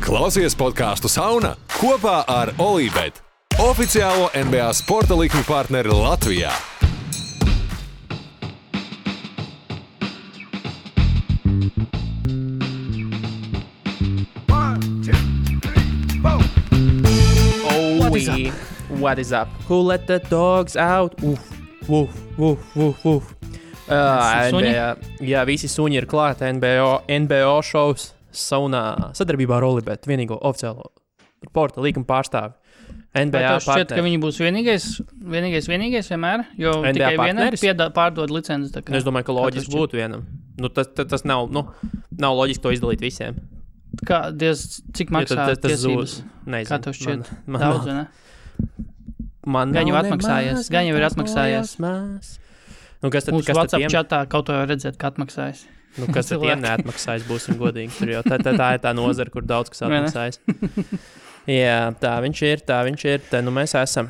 Klausies podcastu Sauna kopā ar Olībet, oficiālo NBA sporta likmi partneri Latvijā. What is up? Who let the dogs out? NBA, visi suņi ir klāti NBO šovs saunā sadarbībā ar Olībet, vienīgo oficiālo sporta līguma pārstāvi. NBA šķiet, ka viņi būs vienīgais vienmēr, jo NBA tikai viena pārdod licences. Es domāju, ka loģiski būtu vienam. Tas nav loģiski to izdalīt visiem. Cik maksā tiesības? Nezinu. Kā tev šķiet? Daudz, vai ne? Gan jau ir atmaksājies. Mūsu WhatsApp čatā kaut ko jau redzēt, ka atmaksājas. Kas ar tiem neatmaksājas, būsim godīgi. Tur jau tā ir tā nozara, kur daudz kas atmaksājas. Jā, tā viņš ir. Te nu mēs esam.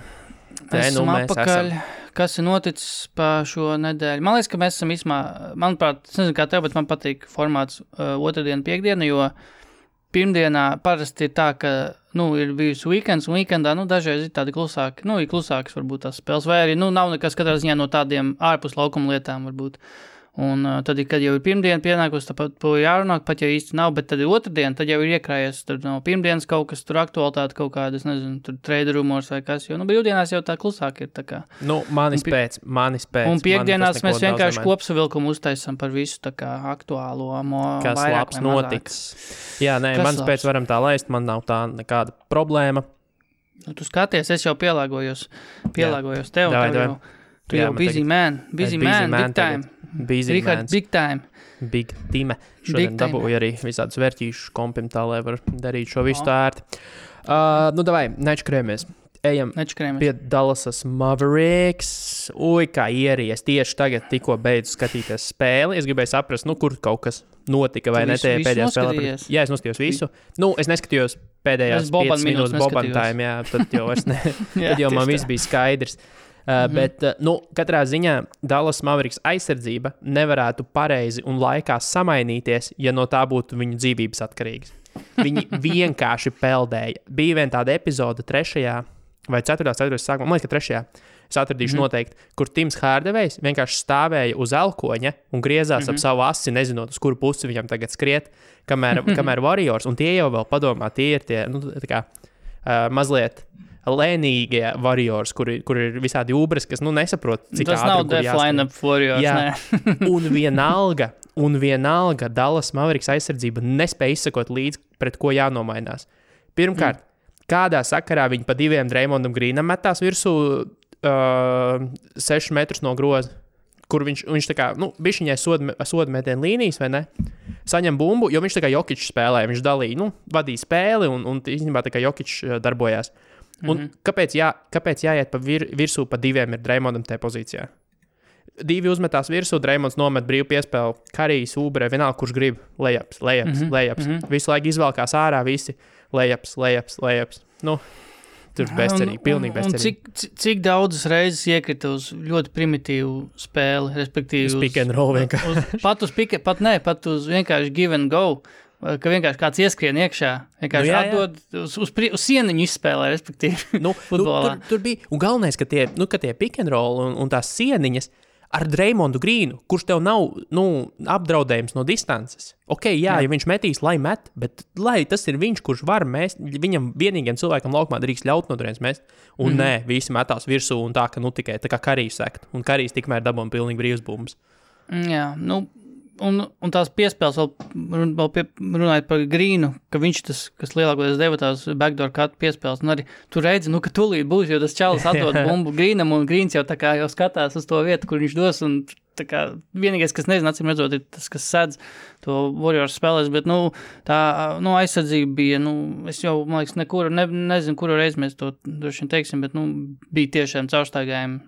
Apakaļ. Kas ir noticis pa šo nedēļu? Man liekas, ka mēs esam manuprāt, es nezinu kā tev, bet man patīk formāts otrdiena, piekdiena, jo pirmdienā parasti ir tā, ka, ir bijusi weekends, un weekendā, dažreiz ir tādi klusāki, ir klusākas varbūt tās spēles, vai arī, nav nekas katrā ziņā no tādiem ārpus laukuma lietām varbūt. Un tad, kad jau ir pirmdiena pienākus, tāpat to jārunāk, pat ja īsti nav, bet tad ir otrdiena, tad jau ir iekrājies, tad no pirmdienas kaut kas tur aktualitāte, kaut kāda, es nezinu, tur trade rumors vai kas, jo, brīvdienās jau tā klusāk ir, tā kā. Manis pēc. Un piekdienās mēs vienkārši kopsavilkumu uztaisam par visu, tā kā aktuālo, kas labs notiks. Jā, manis pēc varam tā laist, man nav tā nekāda problēma. Tu skaties, es jau pielāgojos tev, tu jau busy man, big time. Richard, big time. Big time. Šodien dabūju arī visādus vērtīšus kompim tā, lai var darīt šo visu tā ērti. Davai, nečkrējamies. Ejam pie Dallasas Mavericks. Kā ieries. Tieši tagad tikko beidzu skatīties spēli. Es gribēju saprast, kur kaut kas notika vai ne tajā pēdējā spēlē. Jā, es noskatījos visu. Es neskatījos pēdējās 5 minūtes Boban time, jā, tad jau vairs ne. Tad jau man viss bija skaidrs. Bet, katrā ziņā Dallas Mavericks aizsardzība nevarētu pareizi un laikā samainīties, ja no tā būtu viņu dzīvības atkarīgas. Viņi vienkārši peldēja. Bija viena tāda epizode 3. vai 4. sākumā, man liekas, ka 3. Es atradīšu noteikti, kur Tims Hārdevejs vienkārši stāvēja uz elkoņa un griezās ap savu asi, nezinot, uz kuru pusi viņam tagad skriet, kamēr Warriors, un tie jau vēl padomā, tie ir tie, mazliet lēnīgie Warriors, kur ir visādi ubres, kas, nesaprot, cik tas ātri, nav def line-up Warriors, jā. un vienalga Dallas Mavericks aizsardzība nespēja izsakot līdz, pret ko jānomainās. Pirmkārt, kādā sakarā viņi pa 2 Draymondam Greenam metās virsū 6 metrus no groza, kur viņš tā kā, bišķiņai sodmetienu līnijas, vai ne? Saņem bumbu, jo viņš tā kā Jokić spēlēja, viņš dalīja, vadīja spēli, un īstenībā tā kā Jokić darbojās. Un kāpēc jāiet pa virsū pa 2 ir Draymondam tajā pozīcijā? 2 uzmetās virsū, Draymonds nomet brīvu piespēli, Karijs, Ubre, vienalga, kurš grib, layups. Visu laiku izvelkās ārā visi layups. Tur bezcerīgi, pilnīgi bezcerīgi. Un cik daudzas reizes iekrita uz ļoti primitīvu spēli, respektīvi uz pick and roll vienkārši. Pat uz vienkārši give and go. Ka vienkārši kāds ieskrien iekšā, vienkārši atdod uz sieniņu izspēlē, respektīvi, futbolā. Tur bija, un galvenais, ka tie pick and roll un tās sieniņas ar Draymondu Greenu, kurš tev nav, apdraudējums no distances. Ja viņš metīs, lai met, bet lai tas ir viņš, kurš var mest, viņam vienīgiem cilvēkam laukumā drīkst ļaut no turienes mest, un nē, visi metās virsū un tā, ka tikai tā kā Karijs sekt, un Karijs tikmēr dabūja pilnīgi brīvs bumbas. Jā, Un tās piespēles vēl runājot par Greenu, ka viņš tas, kas lielākoties deva tās backdoor cut piespēles, un arī tu redzi, ka tūlīt būs, jo tas čalis atdod bumbu Greenam, un Greens jau tā kā jau skatās uz to vietu, kur viņš dos, un tā kā vienīgais, kas nezinu, acīm redzot, ir tas, kas sedz to Warriors spēlēs, bet, tā, aizsardzība bija, es jau, man liekas, nezinu, kuru reizi mēs to droši vien teiksim, bet, bija tiešām caurstaigājumi.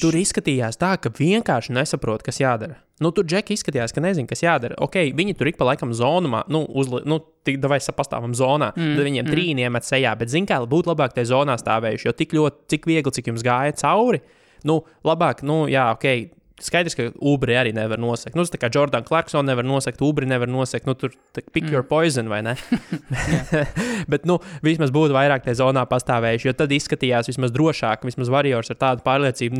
Tur izskatījās tā, ka vienkārši nesaprot, kas jādara. Tur Džeki izskatījās, ka nezin, kas jādara. Viņi tur ik pa laikam zonumā, davai pastāvam zonā, tad viņiem trīni iemet sejā, bet zin kā, būtu labāk tajā zonā stāvējuši, jo cik viegli, cik jums gāja cauri, labāk, skaidrs, ka Ubri arī nevar nosegt. Nu, tas tā kā Jordan Clarkson nevar nosegt, Ubri nevar nosegt, nu, tur pick your poison, vai ne? Bet, nu, vismaz būtu vairāk tie zonā pastāvējuši, jo tad izskatījās vismaz drošāk, vismaz Warriors ar tādu pārliecību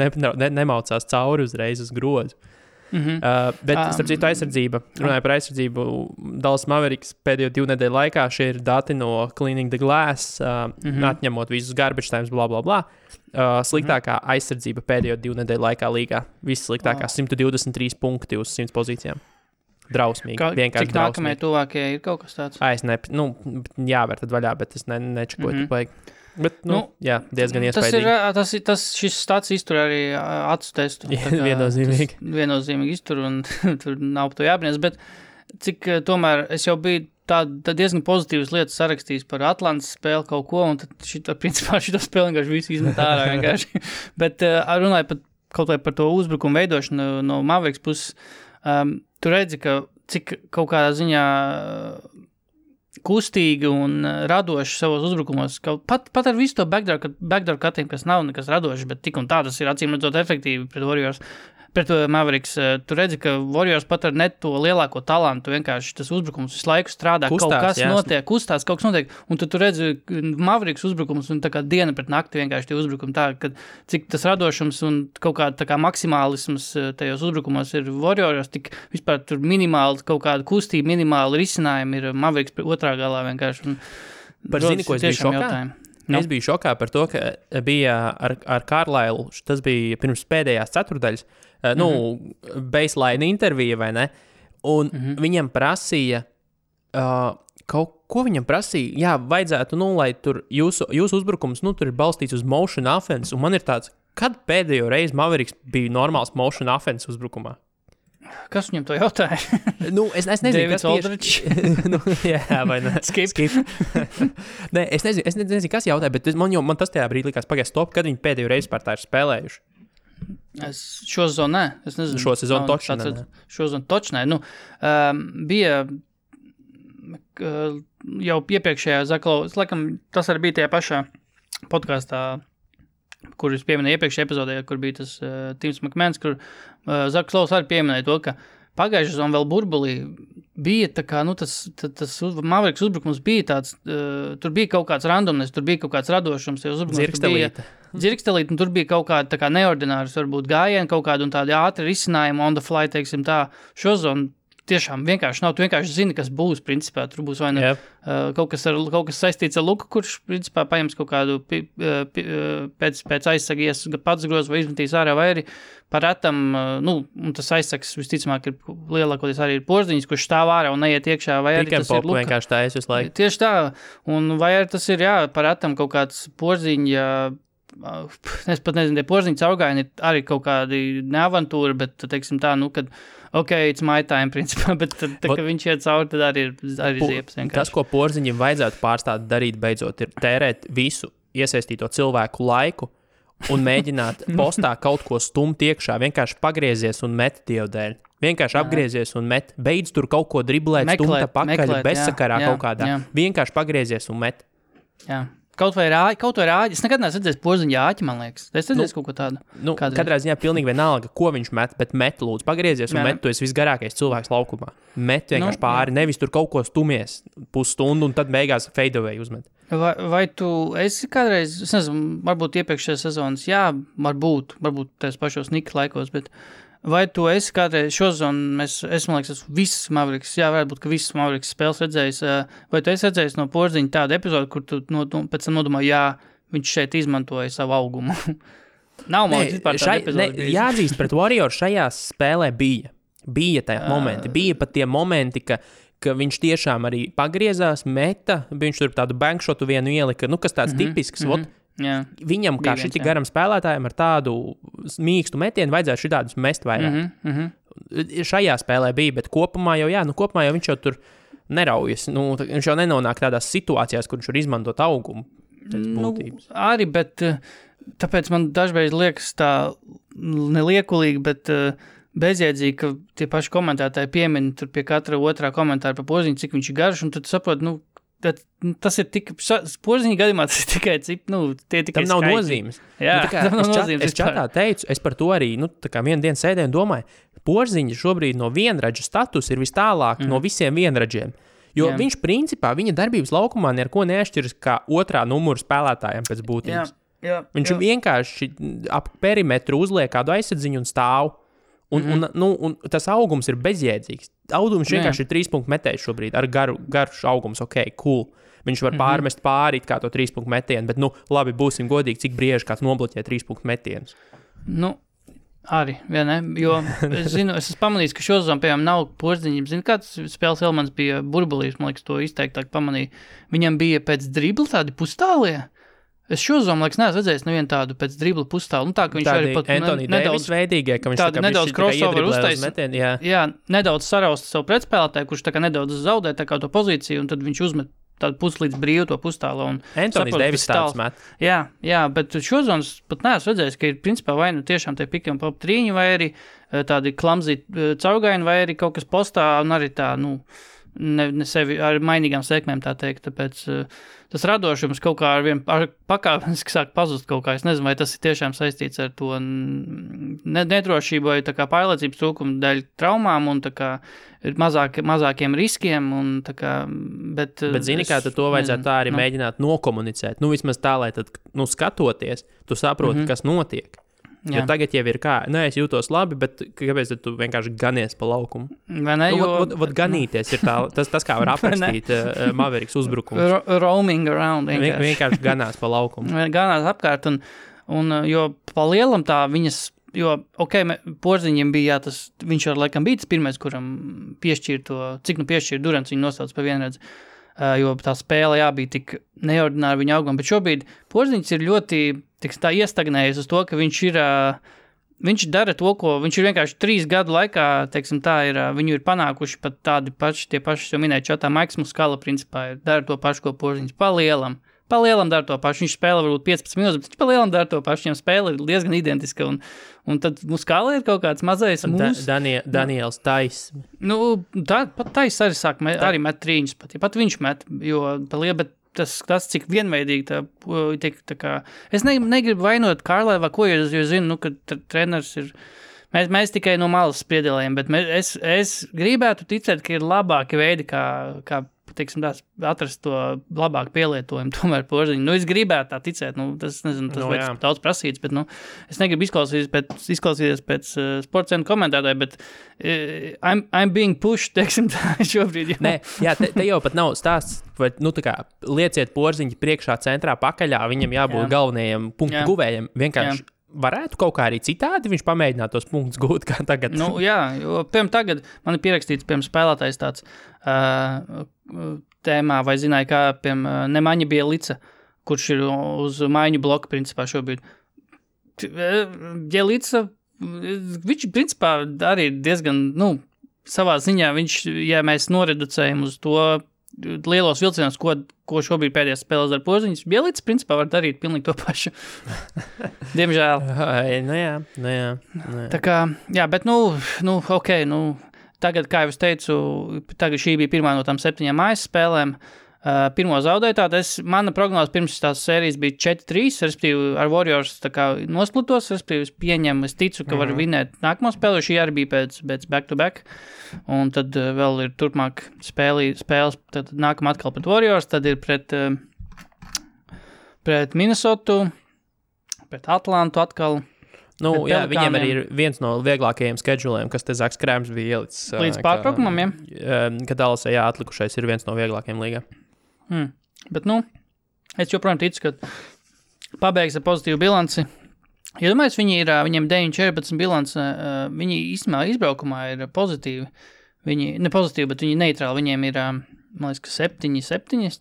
nemaucās cauri uzreiz uz grozu. Bet, starp citu, aizsardzība, runāju par aizsardzību, Dallas Mavericks pēdējo 2 nedēļu laikā, šie ir dati no Cleaning the Glass, atņemot visus garbage times, bla, bla, bla. Sliktākā aizsardzība pēdējo 2 nedēļu laikā līgā. Viss sliktākā 123 punkti uz 100 pozīcijām. Drausmīgi, vienkārši cik drausmīgi. Nākamie tuvākie ir kaut kas tāds? Jāvēr tad vaļā, bet es nečakoju, tu vajag. Bet, jā, diezgan iespaidīgi. Šis stats iztur arī acu testu. Viennozīmīgi. Viennozīmīgi iztur, un tur nav par to jābrīnās, bet cik tomēr es jau biju tā diezgan pozitīvas lietas sarakstījis par Atlantas spēli kaut ko, un tad principā šito spēli vienkārši visu izmet ārā vienkārši. Bet runāju kaut vai par to uzbrukumu veidošanu no Mavericks puses, tu redzi, ka cik kaut kādā ziņā kustīgi un radoši savos uzbrukumos. Pat ar visu to backdoor cutting, kas nav nekas radoši, bet tik un tā tas ir acīm redzot efektīvi pret Warriors. Pret Mavericks, tu redzi, ka Warriors pat ar net to lielāko talantu, vienkārši tas uzbrukums visu laiku strādā, kustās, kaut kas notiek, kustās, kaut kas notiek, un tu redzi Mavericks uzbrukums un tā kā diena pret nakti vienkārši tie uzbrukumi tā, ka cik tas radošums un kaut kā tā kā maksimālisms tajos uzbrukumos ir Warriors, tik vispār tur minimāli kaut kāda kustība, minimāli risinājumi ir Mavericks otrā galā vienkārši. Par zini, ko es biju šokā? No. Es biju šokā par to, ka bija ar Carlisle, tas bija pirms pēdējās ceturdaļas, baseline intervija, vai ne? Un viņam prasīja, ko viņam prasīja? Jā, vajadzētu, lai tur jūsu uzbrukums, tur ir balstīts uz motion offense, un man ir tāds, kad pēdējo reizi Mavericks bija normāls motion offense uzbrukumā? Kas viņam to jautāja? Es nezinu, Davids Aldridge. Jā, vai ne? Skip. Nē, es nezinu, kas jautāja, bet man tas tajā brīdī likās pagājuši stop, kad viņi pēdējo reizi par tā ir spēlējuši. Šo sezonu nē. Es nezinu. Šo sezonu točnē. Šo sezonu točnē. Bija jau iepriekšējā Zaklovas, laikam tas arī bija tajā pašā podkastā, kur es pieminēju iepriekšējā epizodē, kur bija tas Tims McMahons, kur Zaklovs arī pieminēja to, ka pagājušā sezona vēl burbulī bija tā kā, tas Mavericks uzbrukums bija tāds, tur bija kaut kāds randomness, tur bija kaut kāds radošums, dzirkstelīt, un tur bija kaut kāda tā kā neordināras, varbūt gājieni, kaut kāda un tādi ātri risinājumi on the fly, teiksim tā, šo zonu tiešām vienkārši nav, tu vienkārši zini, kas būs, principā, tur būs vai ne kaut kas saistīts ar Luku, kurš, principā, paņems kaut kādu pēc aizsagies pats groz vai izmetīs ārā, vai arī parētam, un tas aizsags visticamāk ir lielākoties arī ir Porziņš, kurš stāv ārā un neiet iekšā, vai arī tas ir Luka. Vienkārši tā es visu laiku. Tieši tā, un vai arī tas ir, parētam kaut kāds Porziņa, es pat nezinu, tie Porziņa caurgājieni ir arī kaut kādi neavantūri, bet, teiksim tā, kad it's my time, principā, bet tad, ka viņš iet cauri, tad arī ziepas vienkārši. Tas, ko Porziņam vajadzētu pārstāt darīt beidzot, ir tērēt visu iesaistīto cilvēku laiku un mēģināt postā kaut ko stumt iekšā, vienkārši pagriezies un met Dievu dēļ. Vienkārši apgriezies un met, beidz tur kaut ko driblēt, stumta pakaļ, bezsakarā kaut kādā. Vienkārši pagriezies un met. Jā. Kaut vai rāģi. Es nekad neesmu redzējis Porziņa āķi, man liekas. Es redzēju kaut ko tādu. Katrā ziņā pilnīgi vienalga, ko viņš met, bet met lūdzu, pagriezies un met, tu esi visgarākais cilvēks laukumā. Met vienkārši pāri, nevis tur kaut ko stumies pusstundu un tad beigās fade away uzmet. Vai tu esi kādreiz, es nezinu, varbūt iepriekšējās sezonas, varbūt tās pašos Nikas laikos, bet vai tu esi kādreiz šo sezonu, es man liekas, visas Mavericks, varētu būt, ka visas Mavericks spēles redzējis, vai tu esi redzējis no Porziņa tādu epizodu, kur tu pēc tam nodomā, viņš šeit izmantoja savu augumu? Nav man vispār tāda epizode. Jāatzīst, pret Warriors šajā spēlē bija tajā momenti, bija pat tie momenti, ka viņš tiešām arī pagriezās, meta, viņš tur tādu bankšotu vienu ielika, kas tāds tipisks, viņam, kā šiti garam spēlētājiem ar tādu mīkstu metienu, vajadzētu šitādus mest vairāk. Šajā spēlē bija, bet kopumā jau viņš jau tur neraujas. Viņš jau nenonāk tādās situācijās, kur viņš var izmantot augumu. Arī, bet tāpēc man dažreiz liekas tā neliekulīgi, bet bezjēdzīgi, ka tie paši komentētāji piemin tur pie katra otrā komentāra par Porziņu, cik viņš ir garš, un tad saprot, tas ir tik, Porziņa gadījumā tas ir tikai, tie tikai tam nav nozīmes. Jā, tam nav nozīmes. Es čatā teicu, es par to arī, tā kā vienu dienu sēdēju un domāju, Porziņa šobrīd no vienradža status ir vis tālāk no visiem vienradžiem. Jo viņš principā, viņa darbības laukumā neko neatšķiras kā otrā numura spēlētājiem pēc būtības. Viņš vienkārši ap perimetru uzliek kādu aizsadziņu un stāv. Un tas augums ir bezjēdzīgs. Audums vienkārši ir 3 punktu metējs šobrīd ar garš augums, cool. Viņš var pārmest pāri kā to 3 punktu metienu, bet, labi, būsim godīgi, cik brieži kāds nobloķē 3 punktu metienus. Arī, ne? Jo es esmu pamanījis, ka šozon, piemēram, nav Porziņam. Zinu, kāds spēles elements bija burbulīs, man liekas, to izteiktāk pamanīju. Viņam bija pēc dribla tādi pustālie. Es šozom, liekas, neesmu redzējis nevienu tādu pēc dribla pustālu. Tā, ka viņš tādi arī pat nedaudz veidīgie, ka viņš tā kā nedaudz crossover uztaisīt. Jā, nedaudz sarausta savu pretspēlētāju, kurš tā kā nedaudz zaudē tā kā to pozīciju, un tad viņš uzmet tādu puslīdz brīvu to pustālu. Antonijs Deivis tāds met. Jā, bet šozonas pat neesmu redzējis, ka ir principā vai tiešām tie piki un pop trīņi, vai arī tādi klamzi caurgaini, vai arī kaut kas postā, un arī tā, ne sevi ar mainīgām sekmēm, tā teikt, tāpēc tas radošums kaut kā ar pakāpeniski sāk pazust kaut kā. Es nezinu, vai tas ir tiešām saistīts ar to nedrošību vai tā kā pārliecības trūkumu dēļ traumām un tā kā mazākiem riskiem un tā kā, bet zini, kā tad to vajadzētu tā arī mēģināt nokomunicēt. Vismaz tā, lai tad, skatoties, tu saproti, kas notiek. Jo tagad jau ir kā, es jūtos labi, bet kāpēc tu vienkārši ganies pa laukumu? Vai ne? Ganīties ir tā, tas kā var aprakstīt Mavericks uzbrukums. Roaming around. Vienkārši ganās pa laukumu. Ganās apkārt, un jo pa lielam tā viņas, jo, Porziņam bija, viņš ar laikam bija tas pirmais, kuram piešķīra to, cik piešķīra Durants, viņu nosauc pa vienredzi. Jo tā spēle, bija tik neordināra viņa auguma, bet šobrīd Porziņš ir ļoti tā iestagnējies uz to, ka viņš dara to, ko viņš ir vienkārši 3 gadu laikā, teiksim tā, viņu ir panākuši pat tādi paši, tie paši, jau minēju čatā, Maiks Muskala principā dara to pašu, ko Porziņš palielam dara to pašu, viņš spēlē varbūt 15 minūtes, bet viņš palielam dara to pašu, viņam spēle ir diezgan identiska, un tad Muskala ir kaut kāds mazais Daniels Tais. Pat Tais arī arī met trīņus, pat viņš met, jo bet tas cik vienveidīgi tā kā, es negribu vainot Kārlēvā, ko jo zinu, ka treneris ir, mēs tikai no malas spriedelējam, bet es gribētu ticēt, ka ir labāki veidi, kā teiksim, atrast to labāku pielietojumu, tomēr Porziņu. Es gribētu tā ticēt, tas vajag daudz prasīts, bet, es negribu izklausīties pēc sportscenu komentētāju, bet I'm being pushed, teiksim tā, šobrīd. Te jau pat nav stāsts, vai, tā kā, lieciet Porziņu priekšā centrā pakaļā, viņam jābūt galvenajam punktu guvējiem, vienkārši. Varētu kaut kā arī citādi viņš pamēģināt tos punktus gūt, kā tagad. Jo, piemēram, tagad man ir pierakstīts, piemēram, spēlētājs tāds tēmā, vai zināja, kā, piemēram, Nemaņa Bielica, kurš ir uz maiņu bloku, principā, šobrīd. Bielica, viņš, principā, arī diezgan, savā ziņā, ja mēs noreducējam uz to lielos vilcienos, ko šobrīd pēdējās spēlēs ar Porziņus, Bielica, principā, var darīt pilnīgi to pašu. Diemžēl. Jā. Tā kā, bet, tagad, kā jau es teicu, šī bija pirmā no tām 7 mājas spēlēm. Pirmo zaudēju, mana prognoze pirms tās sērijas bija 4-3, respektīvi ar Warriors tā kā nosplitos, respektīvi es ticu, ka var vinēt nākamo spēli, jo šī arī bija pēc back-to-back, un tad vēl ir turpmāk spēles, tad nākam atkal pret Warriors, tad ir pret Minnesotu, pret Atlantu atkal. Viņiem arī ir viens no vieglākajiem scheduliem, kas te Zaks Krēms bija ielicis. Līdz pārtraukumam, Kad Dallasā atlikušais ir viens no vieglākajiem līgā. Bet, es joprojām ticu, ka pabeigs ar pozitīvu bilanci. Ja domāju, viņiem 9-14 bilance, viņi īstenībā izbraukumā ir pozitīvi. Viņi, ne pozitīvi, bet viņi neitrāli. Viņiem ir, man liekas, ka 7,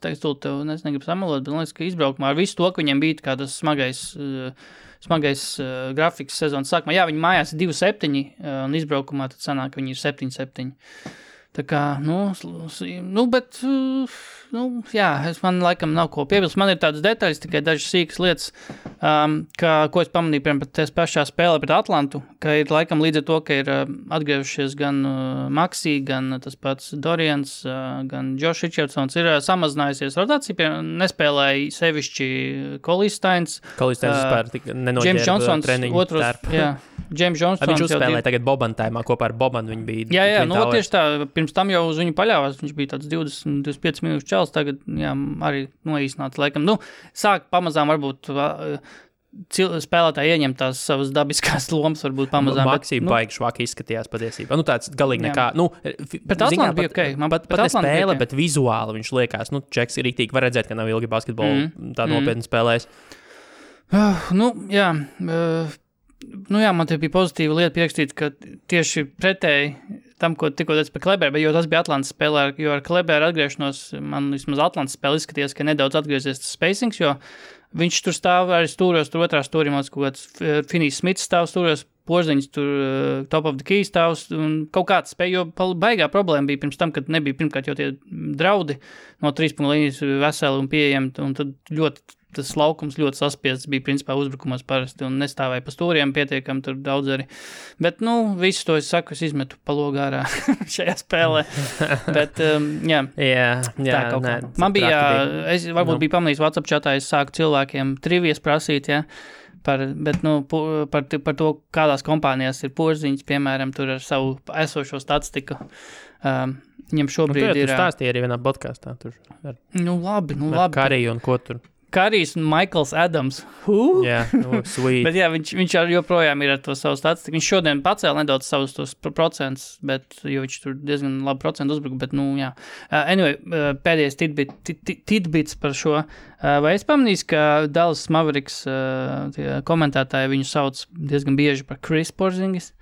tagad tev negribu samalot, bet man liekas, ka izbraukumā ar visu to, ka viņiem bija kā tas smagais grafiks sezonas sākumā. Viņi mājās ir 2-7, un izbraukumā tad sanāk, ka viņi ir 7-7. Tā kā, bet, jā, man laikam nav ko piebilst. Man ir tādas detaļas, tikai dažas sīkas lietas, ko es pamanīju, piemēram, tās pašā spēlē pret Atlantu, ka ir laikam līdz ar to, ka ir atgriežušies gan Maxi, gan tas pats Dorians, gan Josh Richardsons, ir samazinājusies rotācija, piemēram, nespēlēja sevišķi Kolisteins vispār nenoģērba treniņu tērpu. Jā, James Johnsons. Viņš uzspēlēja tagad Boban taimā kopā ar Bobanu, viņi bija. Jā, tieši tā, pirms tam jau uz viņu paļāvās, viņš bija tāds 20-25 minūšu čels, tagad, jā, arī noīsnāts, laikam. Sāk pamazām varbūt spēlētāji ieņem tās savas dabiskās lomas, varbūt pamazām. Maxi baigi švaki izskatījās patiesībā. Tāds galīgi nekā. Pret Atlantu bija okei. Pat ne spēle, bet vizuāli viņš liekas. Čeks ir rīktīgi, var redzēt, ka nav ilgi basketbolu tā nopietni spēlējis. Man te bija pozitīva lieta pierakstīt, ka tieši pretēji tam, ko tikko teicu par Kleberu, jo tas bija Atlantas spēlē, jo ar Kleberu atgriešanos, man vismaz Atlantas spēle izskatījās, ka nedaudz atgriezies tas spacings, jo viņš tur stāv arī stūros, tur otrā stūrī, kaut kāds Finnijs Smits stāv stūros, Porziņš tur top of the key stāvs, un kaut kāds spēj, jo baigā problēma bija pirms tam, kad nebija pirmkārt jau tie draudi no 3 punktu līnijas veseli un pieejami, un tad tas laukums ļoti saspiests bija principā uzbrukumos parasti un nestāvēja pa stūriem pietiekami tur daudz arī. Bet, visu to es saku, es izmetu pa logu ārā šajā spēlē. Bet, jā. Jā, man bija, es varbūt biju pamanījis WhatsApp chatā, es sāku cilvēkiem trivijas prasīt, jā. Par to, kādās kompānijās ir Porziņš, piemēram, tur ar savu esošo statistiku. Viņam šobrīd ir... Tu stāstīji arī vienā podkastā. Labi. Kariju un ko tur. Karijs un Michaels Adams. Jā, sweet. Bet jā, viņš joprojām ir ar to savu statistiku. Viņš šodien pacēla nedaudz savus tos procentus, jo viņš tur diezgan labi procentu uzbruka, bet, jā. Anyway, pēdējais tidbits par šo. Vai es pamanīju, ka Dallas Mavericks komentētāji viņu sauc diezgan bieži par Chris Porzingis?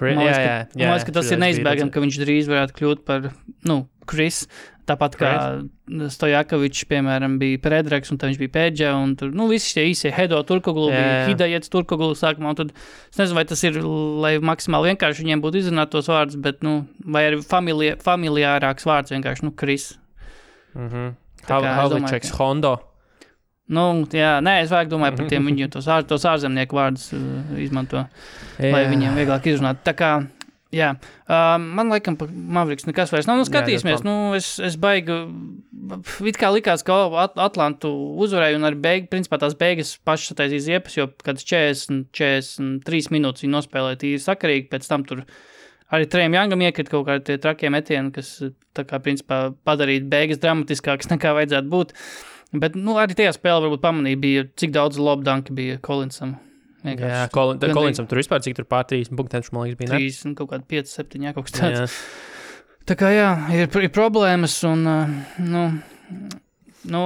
Man liekas, ka tas ir neizbēgami, ka viņš drīz varētu kļūt par, Chris. Tāpat kā Stojakovičs, piemēram, bija Predraks, un tad viņš bija Pēdža, un tur, visi šie īsie Hedo Turkoglu, bija Hidajets Turkoglu sākumā, un tad, es nezinu, vai tas ir, lai maksimāli vienkārši viņiem būtu izrunāt tos vārdus, bet, vai arī familiārāks vārds vienkārši, Chris. Havličeks Hondo. Es vajag domāju par tiem viņu tos ārzemnieku vārdus izmanto, lai viņiem vieglāk izrunāt. Tā kā, jā, man laikam par Mavericks nekas vairs nav. Skatīsimies, es baigi, it kā likās, ka Atlantu uzvarēja un arī principā tās beigas pašas sataisīs iepas, jo kāds 43 minūtes viņi nospēlēja tīri sakarīgi, pēc tam tur arī Trejam Jangam iekrit kaut kādi tie trakie metieni, kas tā kā principā padarīt beigas dramatiskākas nekā vajadzētu būt. Bet, arī tajā spēlē varbūt pamanīja bija, cik daudz lobdanki bija Collinsam. Jā, Collinsam tur vispār, cik tur pār 30 punktiem, man liekas, bija, ne? 30, kaut kādi 5, 7, kaut kas tāds. Tā kā, jā, ir problēmas un,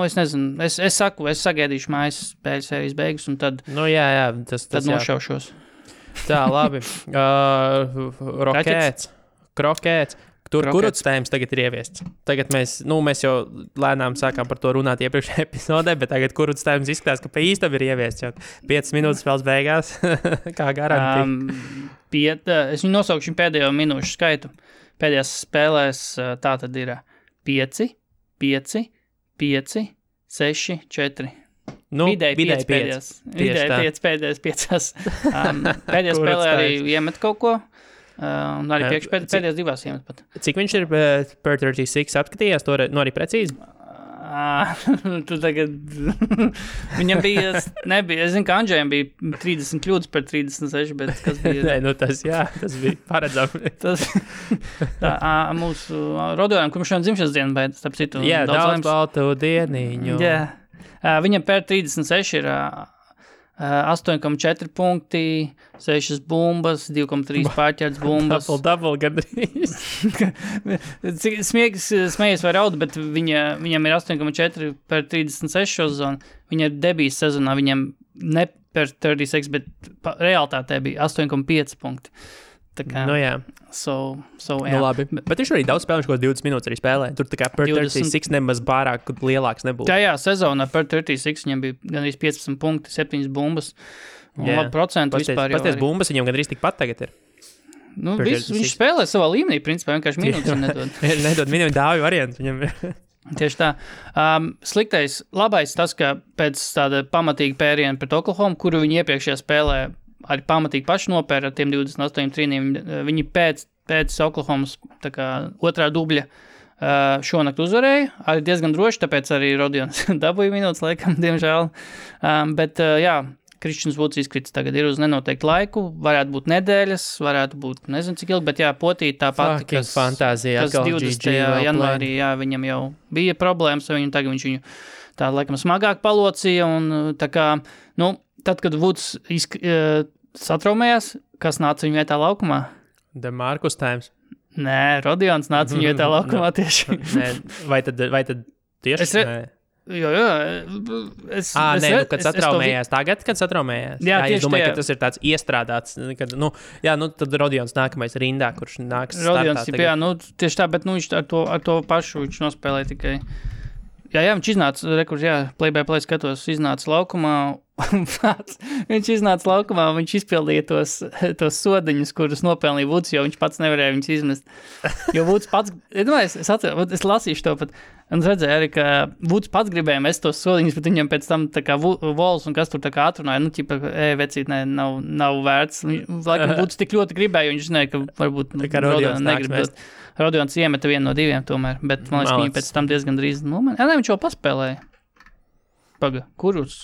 es nezinu, es sagaidīšu mājas spēļu sērijas beigas un tad, tad nošaušos. Tā, labi. Krokēts. Tur kuruts tēmas tagad ir ieviests. Tagad mēs jau lēnām sākām par to runāt iepriekšējā epizodē, bet tagad kuruts tēmas izskatās, ka pa īstam ir ieviests, jo 5 minūtes spēles beigās, kā garantija. Es viņu nosaukšu pēdējo minūšu skaitu. Pēdējās spēlēs tā tad ir 5, 5, 5, 6, 4. Vidēji 5 pēdējās. Vidēji 5 pēdējās 5. Pēdējā spēlē arī iemet kaut ko. Un arī pēdējās 2 iemet pat. Cik viņš ir per 36 apskatījās, to arī precīzi? Tu tagad... Viņam nebija, es zinu, ka Andžējam bija 30 kļūdas par 36, bet kas bija... Nē, tas bija paredzami. Mūsu Rodojam, kurš šodien dzimšanas dienu, bet starp citu... Jā, daudz baltu dieniņu. Jā. Viņam per 36 ir... 8,4 punkti, 6 bumbas, 2,3 pārķerts bumbas. Double gandrīz. Smējies vai raud, bet viņam ir 8,4 per 36 sezonu. Viņa ir debijas sezonā, viņam ne per 36, bet realitātē bija 8,5 punkti. Tā kā, jā. Jā. Labi. Bet viņš arī daudz spēlē, viņš kaut 20 minūtes arī spēlē. Tur tā kā per 36 nemaz pārāk lielāks nebūtu. Tajā sezonā per 36 viņam bija gandrīz 15 punkti, 7 bumbas. Un labi procentu vispār jau pasties bumbas viņam gandrīz tikpat tagad ir. Viņš spēlē savā līmenī, principā vienkārši minūtes nedod. Nedod minūtes dāvi variantu viņam. Tieši tā. Sliktais, labais tas, ka pēc tāda pamatīga pēriena pret Oklahoma, kuru viņi iepriekšējā spēlē arī pamatīgi paši nopēra ar tiem 28 trīniem, viņi pēc Oklahomas otrā dubļa šonakt uzvarēja, arī diezgan droši, tāpēc arī Rodions dabūja minūtes laikam, diemžēl. Bet Kristians Vuds izkrits tagad ir uz nenoteiktu laiku, varētu būt nedēļas, varētu būt nezinu cik ilgi, bet potīt tā pati, kas 20. janvārī, viņam jau bija problēmas, viņam tagad viņš viņu tā laikam smagāk palocīja, un tā kā, tad, kad Vuds satraumējās, kas nāca viņa vietā laukumā? DeMarcus Times. Nē, Rodions nāca viņa vietā laukumā tieši. Nē, vai tad tieši? Jo. Kad satraumējās tagad, kad satraumējās. Jā, es domāju, ka tas ir tāds iestrādāts, kad, tad Rodions nākamais rindā, kurš nāks Rodions, startā. Tieši tā, bet viņš ar to pašu viņš nospēlēja tikai. Jā, viņš iznāca, play-by-play skatos, iznāca laukumā, viņš izpildīja tos sodiņus, kurus nopelnīja Vuds, jo viņš pats nevarēja viņus izmest. Jo Vuds pats, es lasīšu to pat, un redzēju arī, ka Vuds pats gribēja mest tos sodiņus, bet viņam pēc tam tā kā Vols un kas tur tā kā atrunāja, vecīt, nav vērts. Laikam Vuds tik ļoti gribēja, jo viņš zināja, ka varbūt Rodions negrib. Rodions iemeta vienu no diviem tomēr, bet man liekas, ka viņi pēc tam diezgan drīz nomainīja. Viņš jau paspēlēja. Paga, kurus?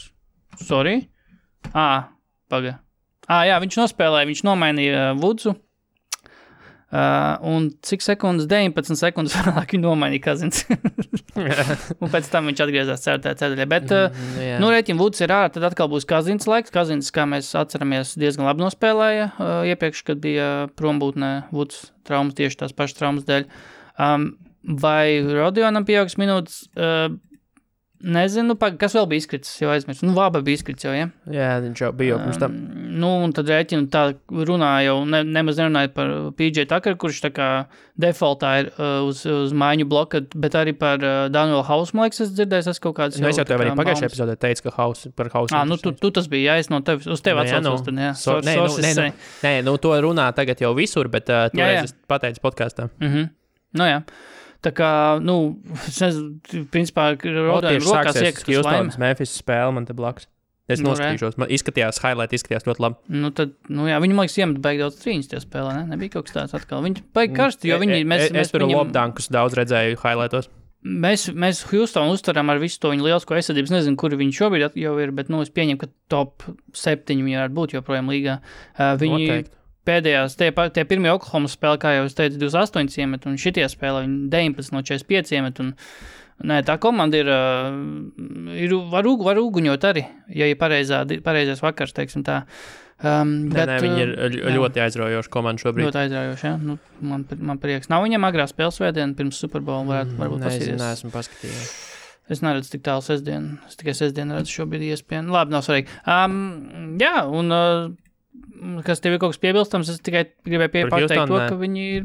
Sorry? Paga. Viņš nospēlēja, viņš nomainīja Vudsu. Un cik sekundes? 19 sekundes vēlāk viņu nomainīja Kazins. Un pēc tam viņš atgriezās ceturtajā. Bet, rēķina Vuds ir ārā, tad atkal būs Kazins laiks. Kazins, kā mēs atceramies, diezgan labi nospēlēja iepriekš, kad bija prombūtnē Vuds traumas, tieši tās pašas traumas dēļ. Vai Rodionam pieaugs minūtes? Nezinu, kas vēl bija izkritis, jau aizmirst. Vāba bija izkritis jau, ja? Jā, viņš jau bija pirms tam. Un tad rēķinu tā runāja jau, nemaz nerunāja par PJ Tucker, kurš tā kā defaultā ir uz mājiņu bloka, bet arī par Danielu Hausu, man liekas, es dzirdēju, kaut kādas jau. Es jau tev arī pagājušajā epizodē teicu, ka par Hausu. Tu tas bija, es no tevi, uz tevi atsaucos, tad, jā. Nē, to runā tagad jau visur, bet toreiz es pateicu podkāstā. Jā. Tā kā, principā, Rodionam rokās iekas Houstonas Memphis spēle man te blakus. Es noskatīšos, man izskatījās ļoti labi. Viņi, man liekas, iemet baigi daudz trīņas tie spēlē, ne? Nebija kaut kas tāds atkal. Viņi baigi karsti, jo viņi... Es tur lobdankus daudz redzēju highlightos. Mēs Houstonu uztaram ar visu to viņu lielisko aizsardzību. Nezinu, kuri viņi šobrīd jau ir, bet, es pieņemu, ka top 7 viņi varētu būt joprojām līgā. Viņi... Pēdējās, tie pirmie Oklahoma spēle, kā jau es teicu, 28 iemet, un šitie spēle, viņi 19 no 45 iemet, un tā komanda var uguņot arī, ja ir pareizais vakars, teiksim tā. Viņi ir ļoti aizraujoši komanda šobrīd. Ļoti aizraujoši, jā. Man prieks. Nav viņam agrā spēles svētdiena, pirms Super Bowl varbūt pasīties. Neesmu paskatījies. Es neredzu tik tālu sestdienu. Es tikai sestdienu redzu šobrīd iespēju. Labi, nav svarīgi. Kas tev ir kaut kas piebilstams, es tikai gribēju pateikt to, ka viņi ir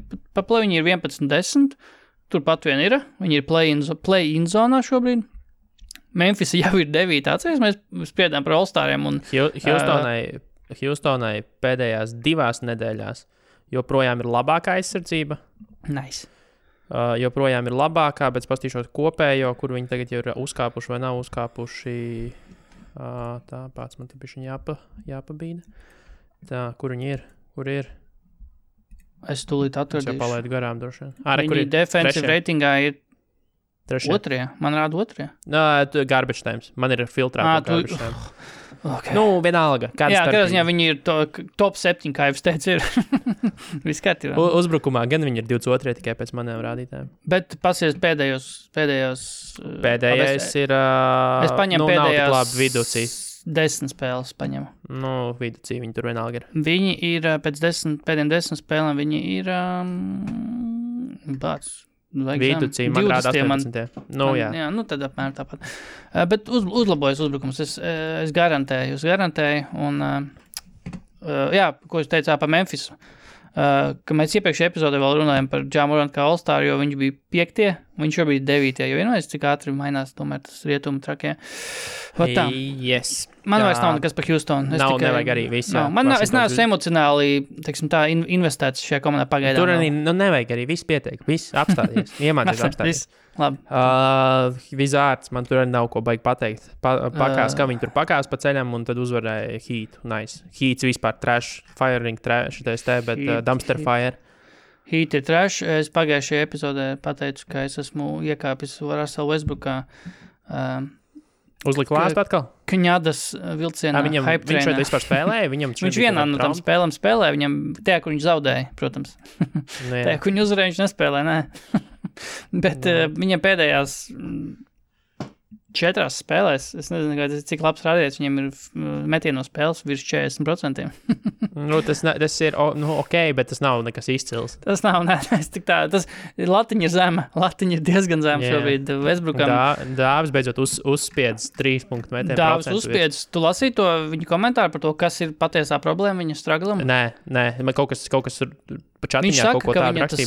11-10, turpat vien ir, viņi ir play-in zonā šobrīd. Memphis jau ir 9, atceries, mēs spriedām par All-Stariem. Houstonai pēdējās 2 nedēļās joprojām ir labākā aizsardzība. Nice. Joprojām ir labākā, bet pastīšot kopējo, kur viņi tagad jau ir uzkāpuši vai nav uzkāpuši. Tā pats man te bišķiņ jāpabīda. Tā, kur viņi ir? Kur ir? Es tūlīt atradīšu. Es jau palaidu garām droši. Viņi defensive ratingā ir 2. Man rāda 2. Garbage times. Man ir filtrēta garbage times. Okay. Vienalga. Kādā ziņā viņi ir top 7, kā jau es teicu, ir viss kārtībā. Uzbrukumā gan viņi ir 22 tikai pēc maniem rādītājiem. Bet pasies pēdējais ir... Es paņemu pēdējās... Labi viducī. 10 spēles paņemu. Viducī viņi tur vienalga ir. Viņi ir pēc pēdējiem 10 spēlēm, viņi ir viducī, man rāda 18. Jā. Tad apmēram tāpat. Bet uzlabojas uzbrukums. Es garantēju, un ko es teicu par Memphisu. Ka mēs iepriekšējā epizodē vēl runājam par Ja Morant kā All-Star, jo viņš bija 5. Viņš jau bija 9. Jo vienojās, cik ātri mainās tomēr tas rietumu trakie. Yes. Man vairs nav nekas par Houstonu. Nevajag arī viss. Es neesmu emocionāli, teiksim tā, investēts šajā komandā pagaidām. Tur arī nevajag arī viss pietiek. Viss apstāties. Iemācies apstāties. Labi. Vizārds, man tur arī nav ko baigi pateikt. Pakās, kā viņi tur pakās pa ceļam un tad uzvarēja Heat. Nice. Heats vispār trash, firing trash, bet dumpster fire. Heat ir trash. Es pagājušajā epizodē pateicu, ka es esmu iekāpis Russell Westbrookā. Uzlika lāstu atkal? Kņadas vilcienā hype trainā. Viņš šeit vispār spēlēja? Viņš vienā no tam spēlēm spēlēja. Viņam tajā, kur viņš zaudēja, protams. Tajā, kur viņš uzvarēja, viņš nespēlēja, nē. Bet viņam pēdējās 4 spēlēs, es nezinu, cik labs rādītājs, viņam ir metieno spēles virs 40%. Tas ir ok, bet tas nav nekas izcils. Tas nav, tas latiņa ir zema, latiņa ir diezgan zema šobrīd Westbrookam. Dāvis beidzot uzspiedz 3 punktu metienu. Dāvis uzspiedz, tu lasīji to viņa komentāru par to, kas ir patiesā problēma viņa straglam? Nē, man kaut kas ir pa čatiņā. Viņš saka, ka viņa tas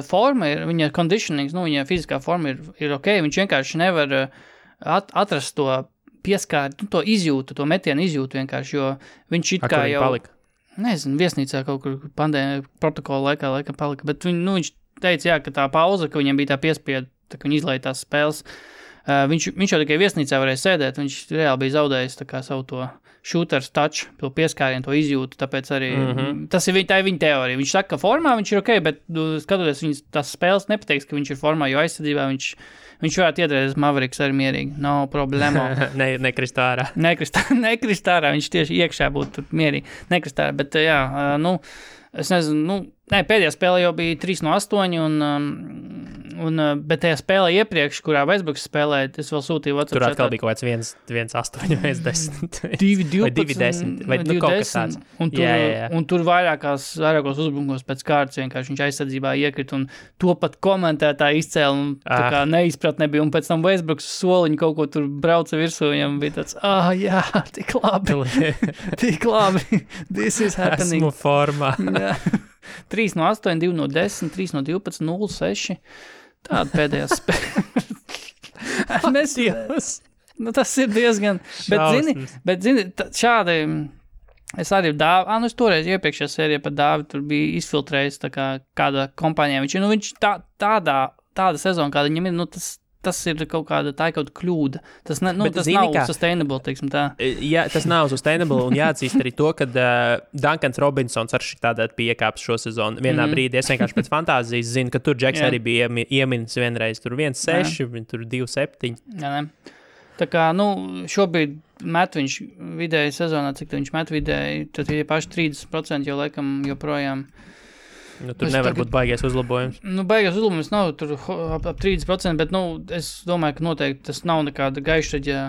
forma ir, viņa conditionings, viņa fiziskā forma ir ok, viņš vienkārši nevar atrast to pieskāri, to izjūtu, to metienu izjūtu vienkārši, jo viņš it kā jau, palika? Nezinu, viesnīcā kaut kur pandēmija protokola laikā palika, bet viņš teica, ka tā pauza, ka viņam bija tā piespieda, tā ka viņi izlaiž tās spēles, viņš jau tikai viesnīcā varēja sēdēt, viņš reāli bija zaudējis tā kā savu to shooters touch, to pieskārienu, to izjūtu, tāpēc arī tā ir viņa teorija. Viņš saka, ka formā viņš ir ok, bet skatoties viņas tās spēles nepateiks, ka viņš ir formā, jo aizsardzībā viņš varētu iedrēties Mavericks arī mierīgi. No problēma. Nekrist ārā. Nekrist ārā, viņš tieši iekšā būtu mierīgi. Nekrist ārā, bet es nezinu, pēdējā spēlē jau bija 3-8 bet tajā spēlē iepriekš, kurā Westbrooks spēlēja, es vēl sūtīju WhatsApp. Tur atkal bija kaut kāds 1-8, 1-10. 2-12 vai kaut kas tāds. Un tur vairākos uzbrukumos pēc kārtas vienkārši viņš aizsardzībā iekrita un to pat komentētāji izcēla un tā kā neizpratne bija. Un pēc tam Westbrooks soliņu kaut ko tur brauca virsū, viņam bija tāds, jā, tik labi, this is happening. Esmu formā. 3-8, 2-10, 3-12, 0-6. Tāda pēdējā spēle. Tas ir diezgan. Bet zini, šādi, es arī es toreiz iepriekšējā sērijā par Dāvi tur bija izfiltrējis tā kā kāda kompānijā. Viņš tāda sezona, kāda viņam ir, tas ir kaut kāda kļūda. Tas nav sustainable, teiksim tā. Jā, tas nav sustainable, un jāatzīst arī to, ka Duncans Robinsons ar šitādā piekāps šo sezonu. Vienā brīdī es vienkārši pēc fantāzijas zinu, ka tur Džeks arī bija ieminis vienreiz. Tur 1-6, tur 2-7. Jā, tā kā, šobrīd met viņš vidēji sezonā, cik viņš met vidēji, tad ir paši 30%, jo laikam joprojām. Tur nevar būt baigais uzlabojums. Baigais uzlabojums nav tur ap 30%, bet, es domāju, ka noteikti tas nav nekāda gaišraģa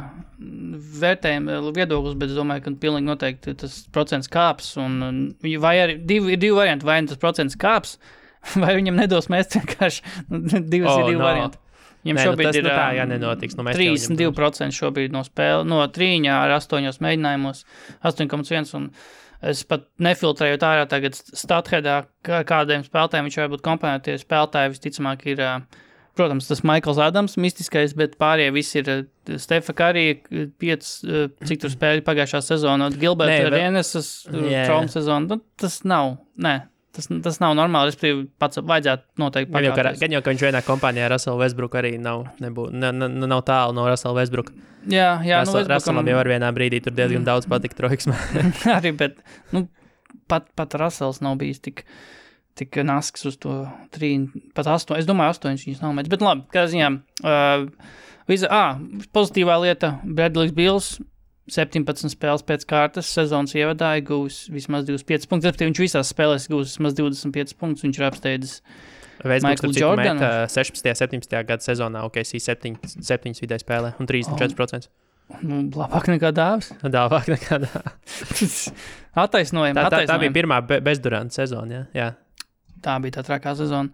vērtējuma viedoklis, bet es domāju, ka pilnīgi noteikti tas procents kāps, vai arī ir divi varianti, vai tas procents kāps, vai viņam nedos mest vienkārši, divi varianti. Viņam šobrīd ir nenotiks. 32% šobrīd no spēle, no 3 ar 8 mēģinājumos, 8,1 un es pat nefiltrēju ārā tagad statheadā, kādiem spēlētājiem viņš var būt komponētie spēlētāji. Visticamāk ir, protams, tas Michaels Adams mistiskais, bet pārējie visi ir Stefa Curry, 5, cik tur spēļi pagājušā sezona, Gilberta Arenas, trauma sezona. Tas nav normāli, respektīvi pats vajadzētu noteikti pakāpties. Gan jau, ka viņš vienā kompānijā Russell Westbrook arī nav tālu no Russell Westbrook. Jā, Russellam jau ar vienā brīdī tur diezgan daudz patika troiksmē. Arī, bet, pat Russells nav bijis tik nasks uz to 3, pat 8, es domāju 8 viņus nav mēdz. Bet labi, kā ziņā, pozitīvā lieta, Bradley's Bills, 17 spēles pēc kārtas, sezonas ievadāja, gūs vismaz 25 punktus. Viņš visās spēlēs gūs vismaz 25 punktus, viņš ir apsteidzis Michaelu Jordanu. 16. 17. gada sezonā OKC 7 vidēji spēlē un 34%. Labāk nekā Dāvis. Labāk nekā Dāvis. Attaisnojam. Tā bija pirmā bezduranta sezona, jā. tā bija tā trakā sezona.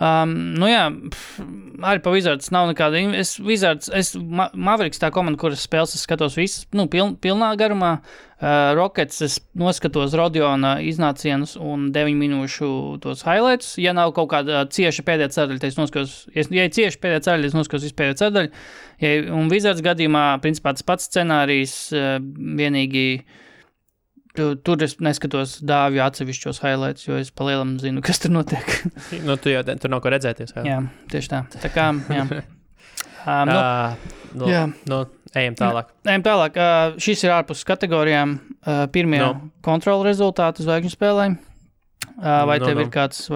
Arī pa Wizards nav nekāda. Mavericks tā komanda, kuras spēles es skatos visas, pilnā garumā. Rockets es noskatos Rodiona iznācienus un 9 minūšu tos highlights. Ja nav kaut kāda cieša pēdējā ceturdaļa, tad es noskatos, ja ir cieša pēdējā ceturdaļa, es noskatos vispēdējā ceturdaļa. Un Wizards gadījumā, principā, tas pats scenārijs, vienīgi tur es neskatos dāvju atsevišķos highlights, jo es pa lielam zinu, kas tur notiek. Tu jau tur nav ko redzēties. Jā, tieši tā. Tā kā, jā. Ejam tālāk. Šis ir ārpus kategorijām. Pirmie kontrola rezultāti zvaigžņu spēlēm. Vai tev ir kāds,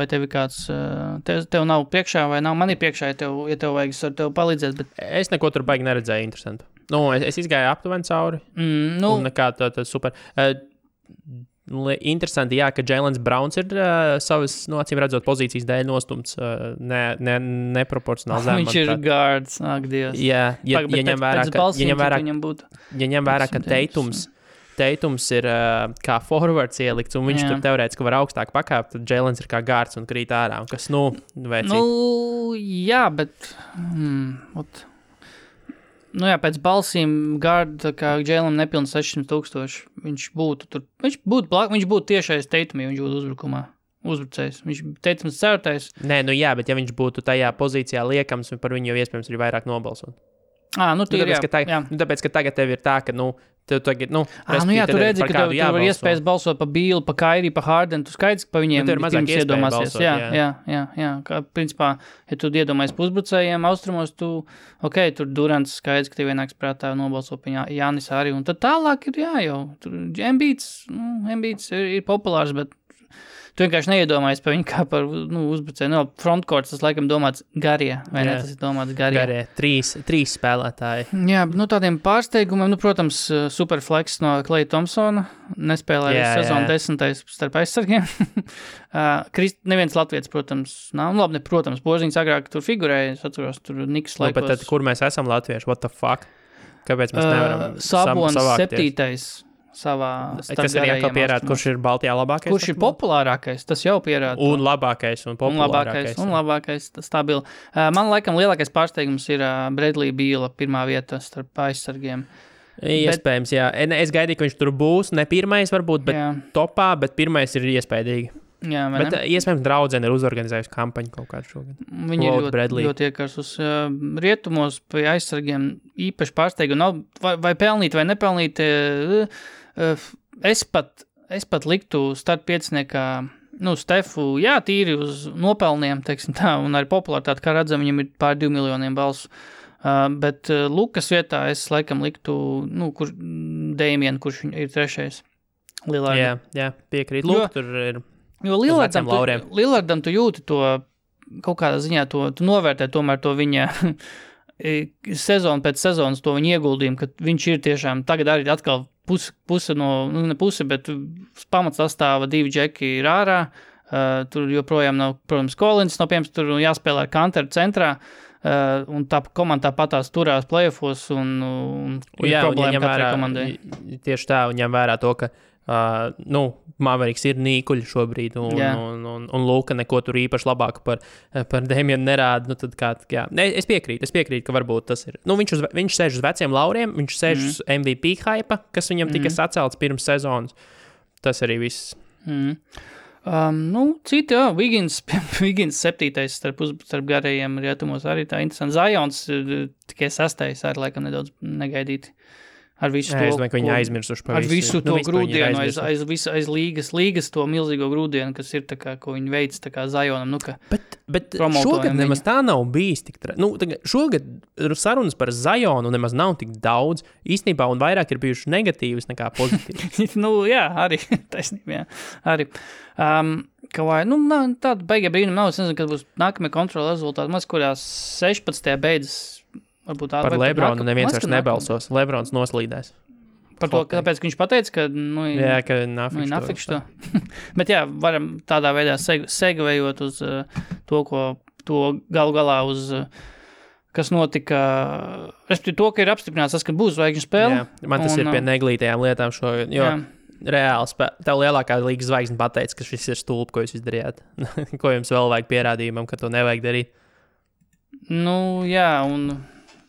tev nav priekšā vai nav? Man ir priekšā, ja tev vajag, es varu tev palīdzēt, bet... Es neko tur baigi neredzēju interesantu. Es izgāju aptuveni cauri. Un nekā tā super... Interesanti, jā, ka Jēlens Brauns ir savas, acīm redzot, pozīcijas dēļ nostumts neproporcionāli zem. Viņš ir guards, ak, Dievs. Jā, ja ņem vērā, ka Teitums ir kā forwards ielikts, un viņš tur teorētiski var augstāk pakāpt, tad Jēlens ir kā guards un krīt ārā, un kas, vecīt. Jā, bet... pēc balsīm Gārda, kā Jēlam nepilns 600,000, viņš būtu tiešais Teitumī, viņš būtu uzbrucējs. Viņš Teitums certais. Nē, bet ja viņš būtu tajā pozīcijā liekams, par viņu jau iespējams ir vairāk nobalsot. Tāpēc, ka tagad tev ir tā, ka, tev tagad, tu redzi, ka tev var iespējas balsot pa Bīlu, pa Kairi, pa Hardenu, tu skaidrs, ka pa viņiem pirms iedomāsies. Jā. Kā, principā, ja tu iedomājies pa uzbrucējiem austrumos, tur Durants skaidrs, ka tev vienāks prātā nobalso pa Jānis arī, un tad tālāk ir tur Embiids ir populārs, bet tu vienkārši neiedomājies par viņu kā par uzbrucēju. Frontcourts, tas laikam domāts Garie, vai ne? Tas ir domāts Garie. Garie, trīs spēlētāji. Jā, tādiem pārsteigumiem, protams, superflex no Klaya Thompsona, nespēlēja sezonu 10. starp aizsargiem. Neviens latvietis, protams, nav. Protams, Boziņš agrāk tur figurēja, es atceros, tur Niks laikos. Bet tad, kur mēs esam latvieši? What the fuck? Kāpēc mēs nevaram Sabonis 7. savā kas arī atkal pierāda, kurš ir Baltijā labākais? Kurš ir populārākais, tas jau pierāda. Un labākais, un populārākais. Un labākais, stabili. Man laikam lielākais pārsteigums ir Bradley Beala pirmā vieta starp aizsargiem. Iespējams, jā. Es gaidīju, ka viņš tur būs, ne pirmais varbūt, bet topā, bet pirmais ir iespējīgi. Jā, bet iespējams draudzene ir uzorganizējusi kampaņu kaut kādu šogad. Viņi ir ļoti iekars uz rietumos pie aizsargiem īpaši pārsteigumi nav, vai pelnīt, vai nepelnīt. Es pat liktu start pieciniekā, Stefu, tīri uz nopelniem, teiksim tā, un arī populāritāti, kā redzam, viņam ir pār 2 miljoniem balsu. Bet Lukas vietā es laikam liktu, Damien, kurš ir trešais. Lillardam. Jā, piekrīt. Lūk, tur ir... Jo Lillardam tu jūti to, kaut kādā ziņā tu novērtē tomēr to viņa sezonu pēc sezonas, to viņa ieguldījumu, ka viņš ir tiešām, tagad arī atkal puse no, ne puse, bet pamats sastāva 2 džeki ir ārā, tur joprojām nav, protams, Collins, piemēram, tur jāspēlē ar Kanteru centrā, un tā komanda tāpatās turās playoffos, un ir problēma katrai komandai. Tieši tā, un ņem vērā to, ka Mavericks ir nīkuļi šobrīd, un Luka neko tur īpaši labāk par Damienu nerāda. Tad es piekrītu, ka varbūt tas ir. Viņš sēž uz veciem lauriem, viņš sēž uz MVP hype, kas viņam tika sacelts pirms sezonas. Tas arī viss. Citi, Wiggins 7. starp garajiem rietumos arī tā interesanti. Zions tikai 6. arī laikam nedaudz negaidīti. Ar visu to, es domāju, ka viņi aizmirsuši par visu. Ar visu to grūdienu, aiz līgas to milzīgo grūdienu, kas ir tā kā, ko viņi veic tā kā Zionam. Bet šogad nemaz tā nav bijis tik šogad sarunas par Zionu nemaz nav tik daudz īstenībā, un vairāk ir bijuši negatīvas nekā pozitīvas. Arī, taisnība, jā. Arī. Tāda beigie brīnumi nav, es nezinu, kad būs nākamie kontrola rezultāti, maz kurās 16. beidzas. Par Lebronu neviens vairs nebalsos. Lebrons noslīdēs. Par to, kāpēc viņš pateica, ka ka nafikš to. Bet varam tādā veidā segvējot uz to galu galā uz, kas notika, respektīvi to, ka ir apstiprināts tas, ka būs zvaigžņu spēle. Man tas ir pie neglītajām lietām šogad, jo reāli tev lielākā līgas zvaigzne pateica, ka šis ir stulbi, ko jūs izdarījāt. Ko jums vēl vajag pierādījumam, ka to nevajag darīt? Jā, un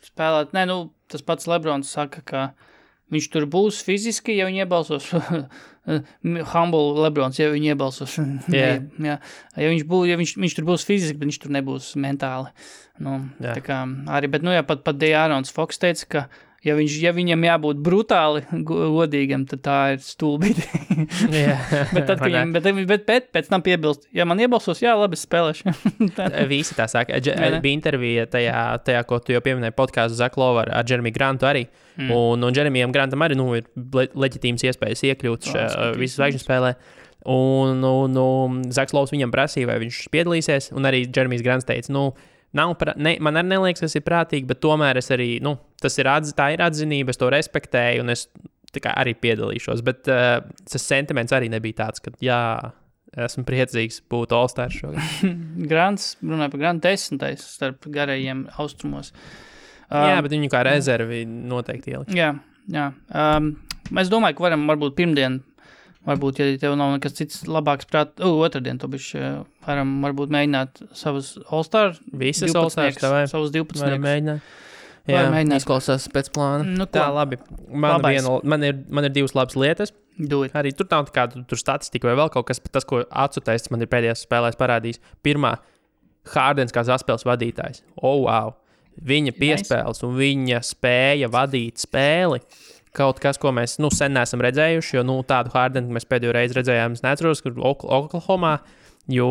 spēlēt, tas pats Lebrons saka, ka viņš tur būs fiziski, ja viņi iebalsos. Humble Lebrons, ja viņi iebalsos. Yeah. Jā. Ja viņš tur būs fiziski, bet viņš tur nebūs mentāli. Tā kā arī, bet, pat De'Aarons Fox teica, ka ja viņam jābūt brutāli godīgam, tad tā ir stulbīti. bet pēc tam piebilst, ja man iebalsos, jā, labi, spēlēšu. Visi tā saka. Bija intervija tajā, ko tu jau pieminēji podcastu Zach Lowe ar Jeremy Grantu arī. Un Jeremijam Grantam arī ir leģitīmas iespējas iekļūt visu zvaigžņu spēlē. Un Zachs Lowe viņam prasīja, vai viņš piedalīsies, un arī Jeremijs Grants teica, man arī neliekas, tas ir prātīgi, bet tomēr es arī, tā ir atzinība, es to respektēju, un es arī piedalīšos. Bet tas sentiments arī nebija tāds, ka esmu priecīgs būt All-Stars šogad. Grants, runāja par Grantu 10. starp garajiem austrumos. Jā, bet viņu kā rezervi noteikti ielikt. Jā. Es domāju, ka varam varbūt pirmdien, varbūt, ja tev nav nekas cits labāks otrdien, to bišķi varam varbūt mēģināt savus All-Star. Visas All-Stars, savus 12. Varam mēģināt. Jā, izklausās pēc plāna. Tā, labi. Man ir divas labas lietas. Arī tur nav kāda tur statistika vai vēl kaut kas, tas, ko atsutests man ir pēdējās spēlēs parādījis. Pirmā, Hardens kā saspēles vadītājs. Wow! Viņa piespēles un viņa spēja vadīt spēli. Kaut kas, ko mēs sen neesam redzējuši, jo tādu Hardenu mēs pēdējo reizi redzējām, es neatceros, kur Oklahomā, jo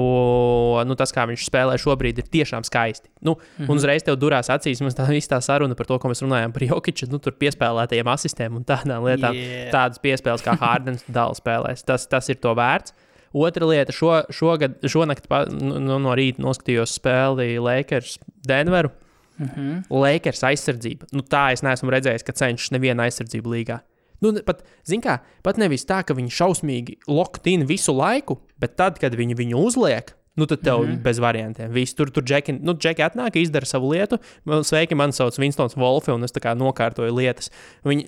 tas, kā viņš spēlē šobrīd, ir tiešām skaisti. Un uzreiz tev durās acīs, mums tā saruna par to, ko mēs runājām par Jokiču, tur piespēlētajiem asistēm un tādām lietām, tādas piespēles, kā Hardens dala spēlēs. Tas ir to vērts. Otra lieta, šonakt no rīta noskatījos spēli Lakers Denveru. Lakers aizsardzība. Tā es neesmu redzējis, ka cenšas neviena aizsardzība līgā. Pat nevis tā, ka viņi šausmīgi locked in visu laiku, bet tad, kad viņi viņu uzliek, tad tev bez variantiem. Visi tur Džeki atnāk, izdara savu lietu. Sveiki, man sauc Winstons Wolfe, un es tā kā nokārtoju lietas. Viņi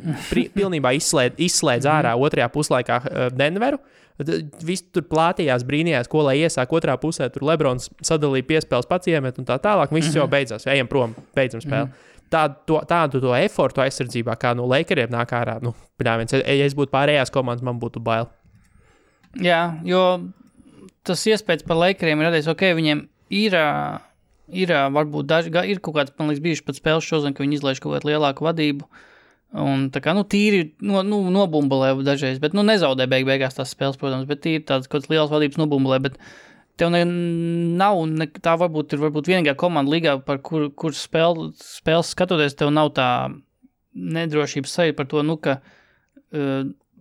pilnībā izslēdz ārā otrajā puslaikā Denveru. Visi tur plātījās, brīnījās, ko lai iesāk otrā pusē. Tur Lebrons sadalīja piespēles pats iemet un tā tālāk. Viss jau beidzās. Ejam prom, beidzam spēli. Tādu to efortu aizsardzībā, kā no Lakeriem nāk ārā. Ja es būtu pārējās komandas, man būtu bail. Jā, jo tas iespējas par Lakeriem ir radies, viņiem ir varbūt ir kaut kāds, man liekas, bijuši pat spēles šodien, ka viņi izlaiž kaut kādu lielāku vadību. Un tā kā, tīri nobumbulē dažreiz, bet, nezaudē beigās tās spēles, protams, bet tīri tādas kaut kādas lielas vadības nobumbulē, bet tev tā varbūt ir vienīgā komanda līgā, par kur spēles skatoties, tev nav tā nedrošības sajūta par to, ka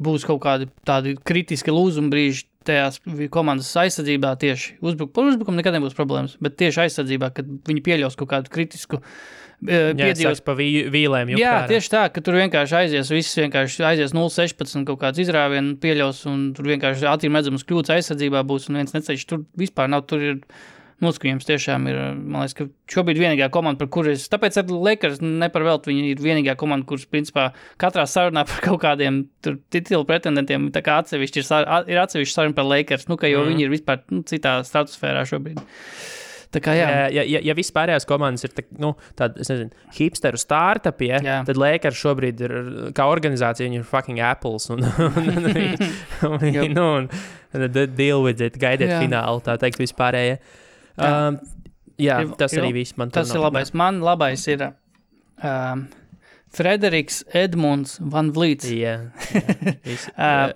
būs kaut kādi tādi kritiski lūzuma brīži tajās komandas aizsardzībā tieši par uzbrukumu nekad nebūs problēmas, bet tieši aizsardzībā, kad viņi pieļaus kaut kādu kritisku piedzīvos pa vīlēm. Jā, tieši tā, ka tur vienkārši aizies 0-16 kaut kāds izrāvienu pieļaus un tur vienkārši acīm redzams kļūdas aizsardzībā būs un viens neceļš. Tur vispār nav, tur ir noskatījums tiešām ir, man liekas, ka šobrīd vienīgā komanda, par kuru tāpēc ar Lakers neparvelt, viņi ir vienīgā komanda, kuras principā katrā sarunā par kaut kādiem tur titulu pretendentiem, tā kā atsevišķi ir atsevišķi saruna par Lakers, jo viņi ir vispār citā stratosfērā šobrīd. Tā kā, ja viss pārējās komandas ir tāda, es nezinu, hipsteru startupi, tad Lakers šobrīd ir, kā organizācija, viņi ir fucking Apples un deal with it, gaidiet finālu, tā teikt, vispārējie. Tas arī viss man tur tas ir labais. Man labais ir Frederiks Edmunds Van Vliets.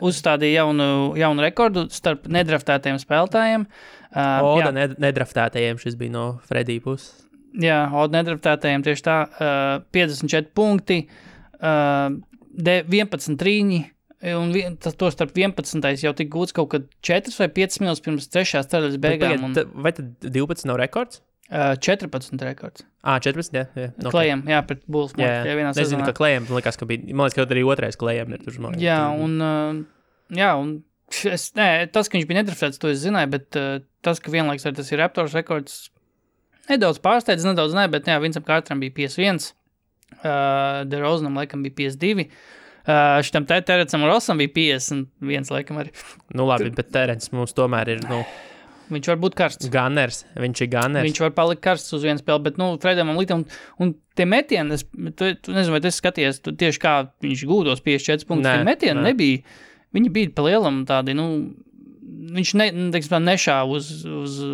Uzstādīja jaunu rekordu starp nedraftētajiem spēlētājiem. Nedraftētajiem šis bija no Fredija puses. Jā, nedraftētajiem tieši tā. 54 punkti, 11 trīņi, un to starp 11. jau tik gūts kaut kad 4 vai 5 minūtes pirms 3. ceļas beigām. Vai tad 12 nav rekords? 14 rekords. 14, jā. Okay. Klejam, jā, pret Bulls. Nezinu, ka Klejam, likās, ka bija, man liekas, ka arī otrais Klejam ir tur. Jā, un tas, ka viņš bija nedraftēts, to es zināju, bet tas, ka vienlaiks arī tas ir Raptors rekords, nedaudz pārsteidz, bet Vincam Carteram bija 51, DeRozanam laikam bija 52. Šitam Terencam Rosam bija 51 laikam arī. Nu labi, bet Terence mums tomēr ir, Viņš var būt karsts. Viņš ir gunners. Viņš var palikt karsts uz vienu spēli, bet, Fredam Litam, un tie metieni, tu nezinu, vai tu skaties, tieši kā viņš gūtos 54 punktus, tie metieni nebija, viņi bija pa lielam tādi, viņš nešāva uz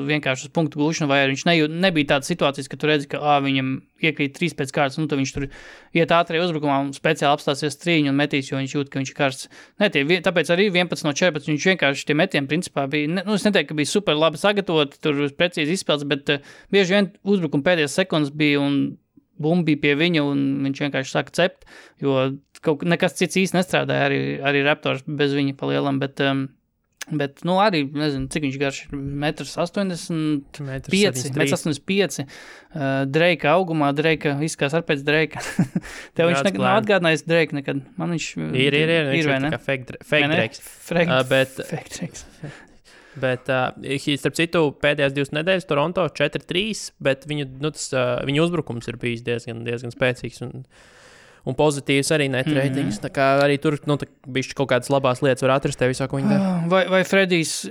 vienkārši uz punktu gūšanu, vai viņš nebija tādas situācijas, ka tu redzi, ka viņam iekrīt 3 pēc kārtas, tad viņš tur iet ātrie uzbrukumā un speciāli apstāsies trīņu un metīs, jo viņš jūt, ka viņš ir karsts. Tāpēc arī 11 no 14 viņš vienkārši tie metieni principā bija, es neteiktu, ka bija super labi sagatavoti, tur precīzi izspēlts, bet bieži vien uzbrukuma pēdējās sekundes bija un bumba bija pie viņa un viņš vienkārši sāka cept, jo nekas cits īsti nestrādāja arī Raptors bez viņa pa lielam, bet arī, nezinu, cik viņš garš ir, 1,85 m. Dreika augumā, Dreika izskās ar pēc Dreika. Tev viņš nekad nav atgādinājis Dreika nekad. Man viņš ir, viņš ir kā fake Dreiks. Fake Dreiks. Bet, starp citu, pēdējās 2 nedēļas Toronto 4-3, bet viņu uzbrukums ir bijis diezgan spēcīgs un pozitīvs arī net ratings. Tā kā arī tur bišķi kaut kādas labās lietas var atrast tev visā, ko viņi dara. Vai Fredijs,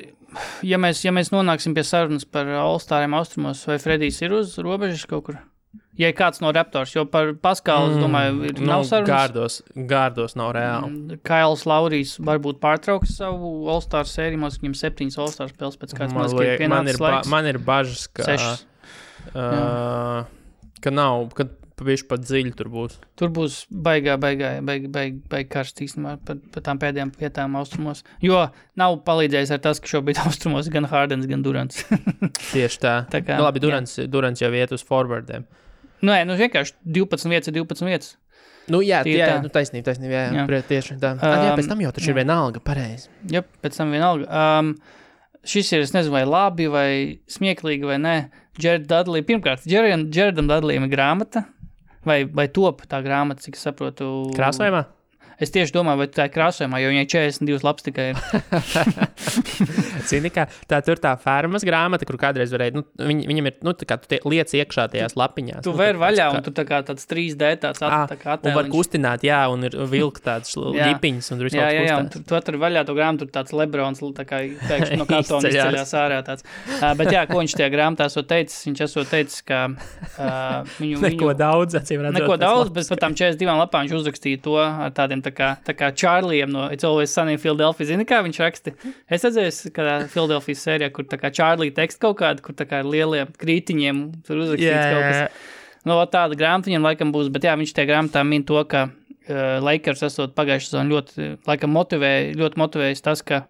ja mēs nonāksim pie sarunas par All-Stariem austrumos, vai Fredijs ir uz robežas kaut kur? Ja ir kāds no Raptors, jo par Paskalu, es domāju, nav sarunas. Gārdos nav reāli. Kails Laurijs varbūt pārtrauks savu All-Star sēriju, mums viņam 7 All-Star spēles pēc kāds mazliet pienācis laiks. Man ir bažas, ka nav, ka pavisam pat dziļi tur būs. Tur būs baigi karsts īstenībā par tām pēdējām vietām austrumos. Jo nav palīdzējis ar tas, ka šobrīd austrumos gan Hardens, gan Durants. Tieši tā. Labi, Durants jau iet uz forwardiem. Vienkārši 12 vietas. Taisnība, jā. Tieši tā. Pēc tam jau taču ir vienalga, pareizi. Jā, pēc tam vienalga. Šis ir, es nezinu, vai labi, vai smieklīgi, vai nē. Jared Dudley, pirmkārt, Jaredam Dudleyam ir grāmata, vai top tā grāmata, cik es saprotu. Krāsojumā? Es tieši domāju, vai tā ir krāsojumā, jo viņai 42 lapas tikai ir. Zini, kā tur tā fermas grāmata, kur kādreiz varēja, viņam ir, tā kā tu liec iekšā tajās lapiņās. Tu vēri vaļā, un tu tā kā tāds 3D tāds attēliņš. Un var kustināt, jā, un ir vilkt tāds ģipiņas, un tur visu kaut Jā, un tu atver vaļā to grāmatu, tur tāds Lebrons, tā kā pēkšņi no kartona izceļās ārā tāds. Bet jā, ko viņš tajā grāmatā esot teicis? Viņš esot teicis, ka Neko daudz, bet par tām 42 lapām viņš uzrakstīja to ar tādiem tā kā Čārlijam no It's Always Sunny in Philadelphia. Zini, kā viņš raksti? Es redzēju, kādā Philadelphia sērijā, kur tā kā Čārlija teksts kaut kādu, kur tā kā ar lieliem krītiņiem tur uzrakstīts kaut kas. Tāda grāmata viņam laikam būs, bet jā, viņš tajā grāmatā min to, ka Lakers esot pagājušā sezonu ļoti motivējis tas, ka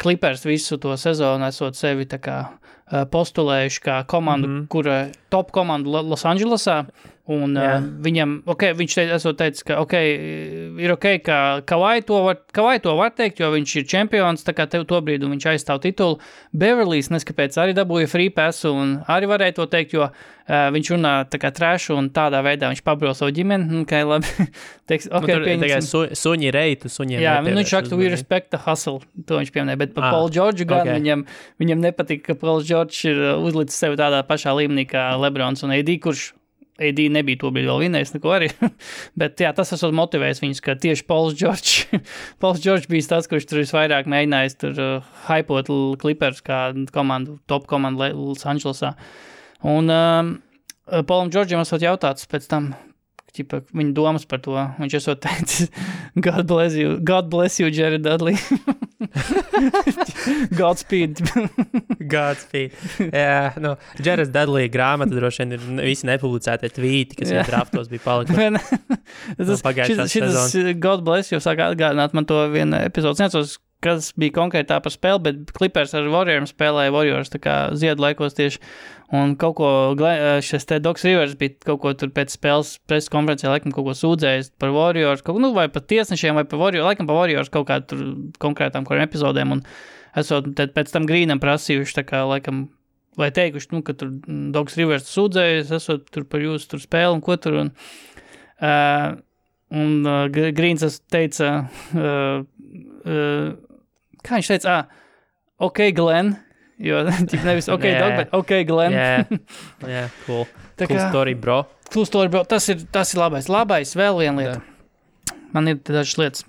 Clippers visu to sezonu esot sevi tā kā postulējuši kā komandu, kura top komandu Los Andželesā. Un viņam, viņš esot teicis, ka ir ka Kawhi to var teikt, jo viņš ir čempions, tā kā tev to brīdi viņš aizstāv titulu. Beverlīs neskapēc arī dabūja free passu un arī varēja to teikt, jo viņš runā tā kā trashu un tādā veidā viņš pabro savu ģimeni. Labi, teiks, suņi reitu, suņiem jā, viņš raksta, we respect the hustle, to viņš pieminēja, bet par Paul George gan viņam nepatika, ka Paul George ir uzlicis sevi tādā pašā līmenī kā Lebrons un AD, kurš AD nebija to brīdi vēl vinējis neko arī, bet jā, tas esot motivējis viņus, ka tieši Pauls George bija tas, kurš tur visvairāk mēģinājis tur hypot Clippers kā komandu, top komandu Los Andželesā. Un Paulam Georgeam esot jautāts pēc tam, viņa domas par to, viņš esot teicis, God bless you, Jared Dudley. Godspeed. Jā, Jared Dudley grāmata droši vien ir visi nepublicētie tvīti, kas viņa draftos bija palikuši. Šis God bless you sāk atgādināt man to vienu epizodu. Necos, kas bija konkrētā par spēli, bet Clippers ar Warriors spēlēja Warriors tā kā ziedu laikos tieši. Un kaut ko, šis te Docs Rivers bija kaut ko tur pēc spēles preses konferencē, laikam kaut ko sūdzējis par Warriors, vai par tiesnešiem, vai par Warriors, laikam par Warriors kaut kā tur konkrētām kuriem epizodēm, un esot pēc tam Greenam prasījuši, tā kā laikam, vai teikuši, ka tur Docs Rivers sūdzējis, esot tur par jūsu tur spēli un ko tur, un Greens teica, kā viņš teica, Glenn, jo nevis Dog, bet Glenn. Jā, cool. Cool story, bro. Cool story, bro. Tas ir labais. Labais, vēl viena lieta. Man ir dažas lietas.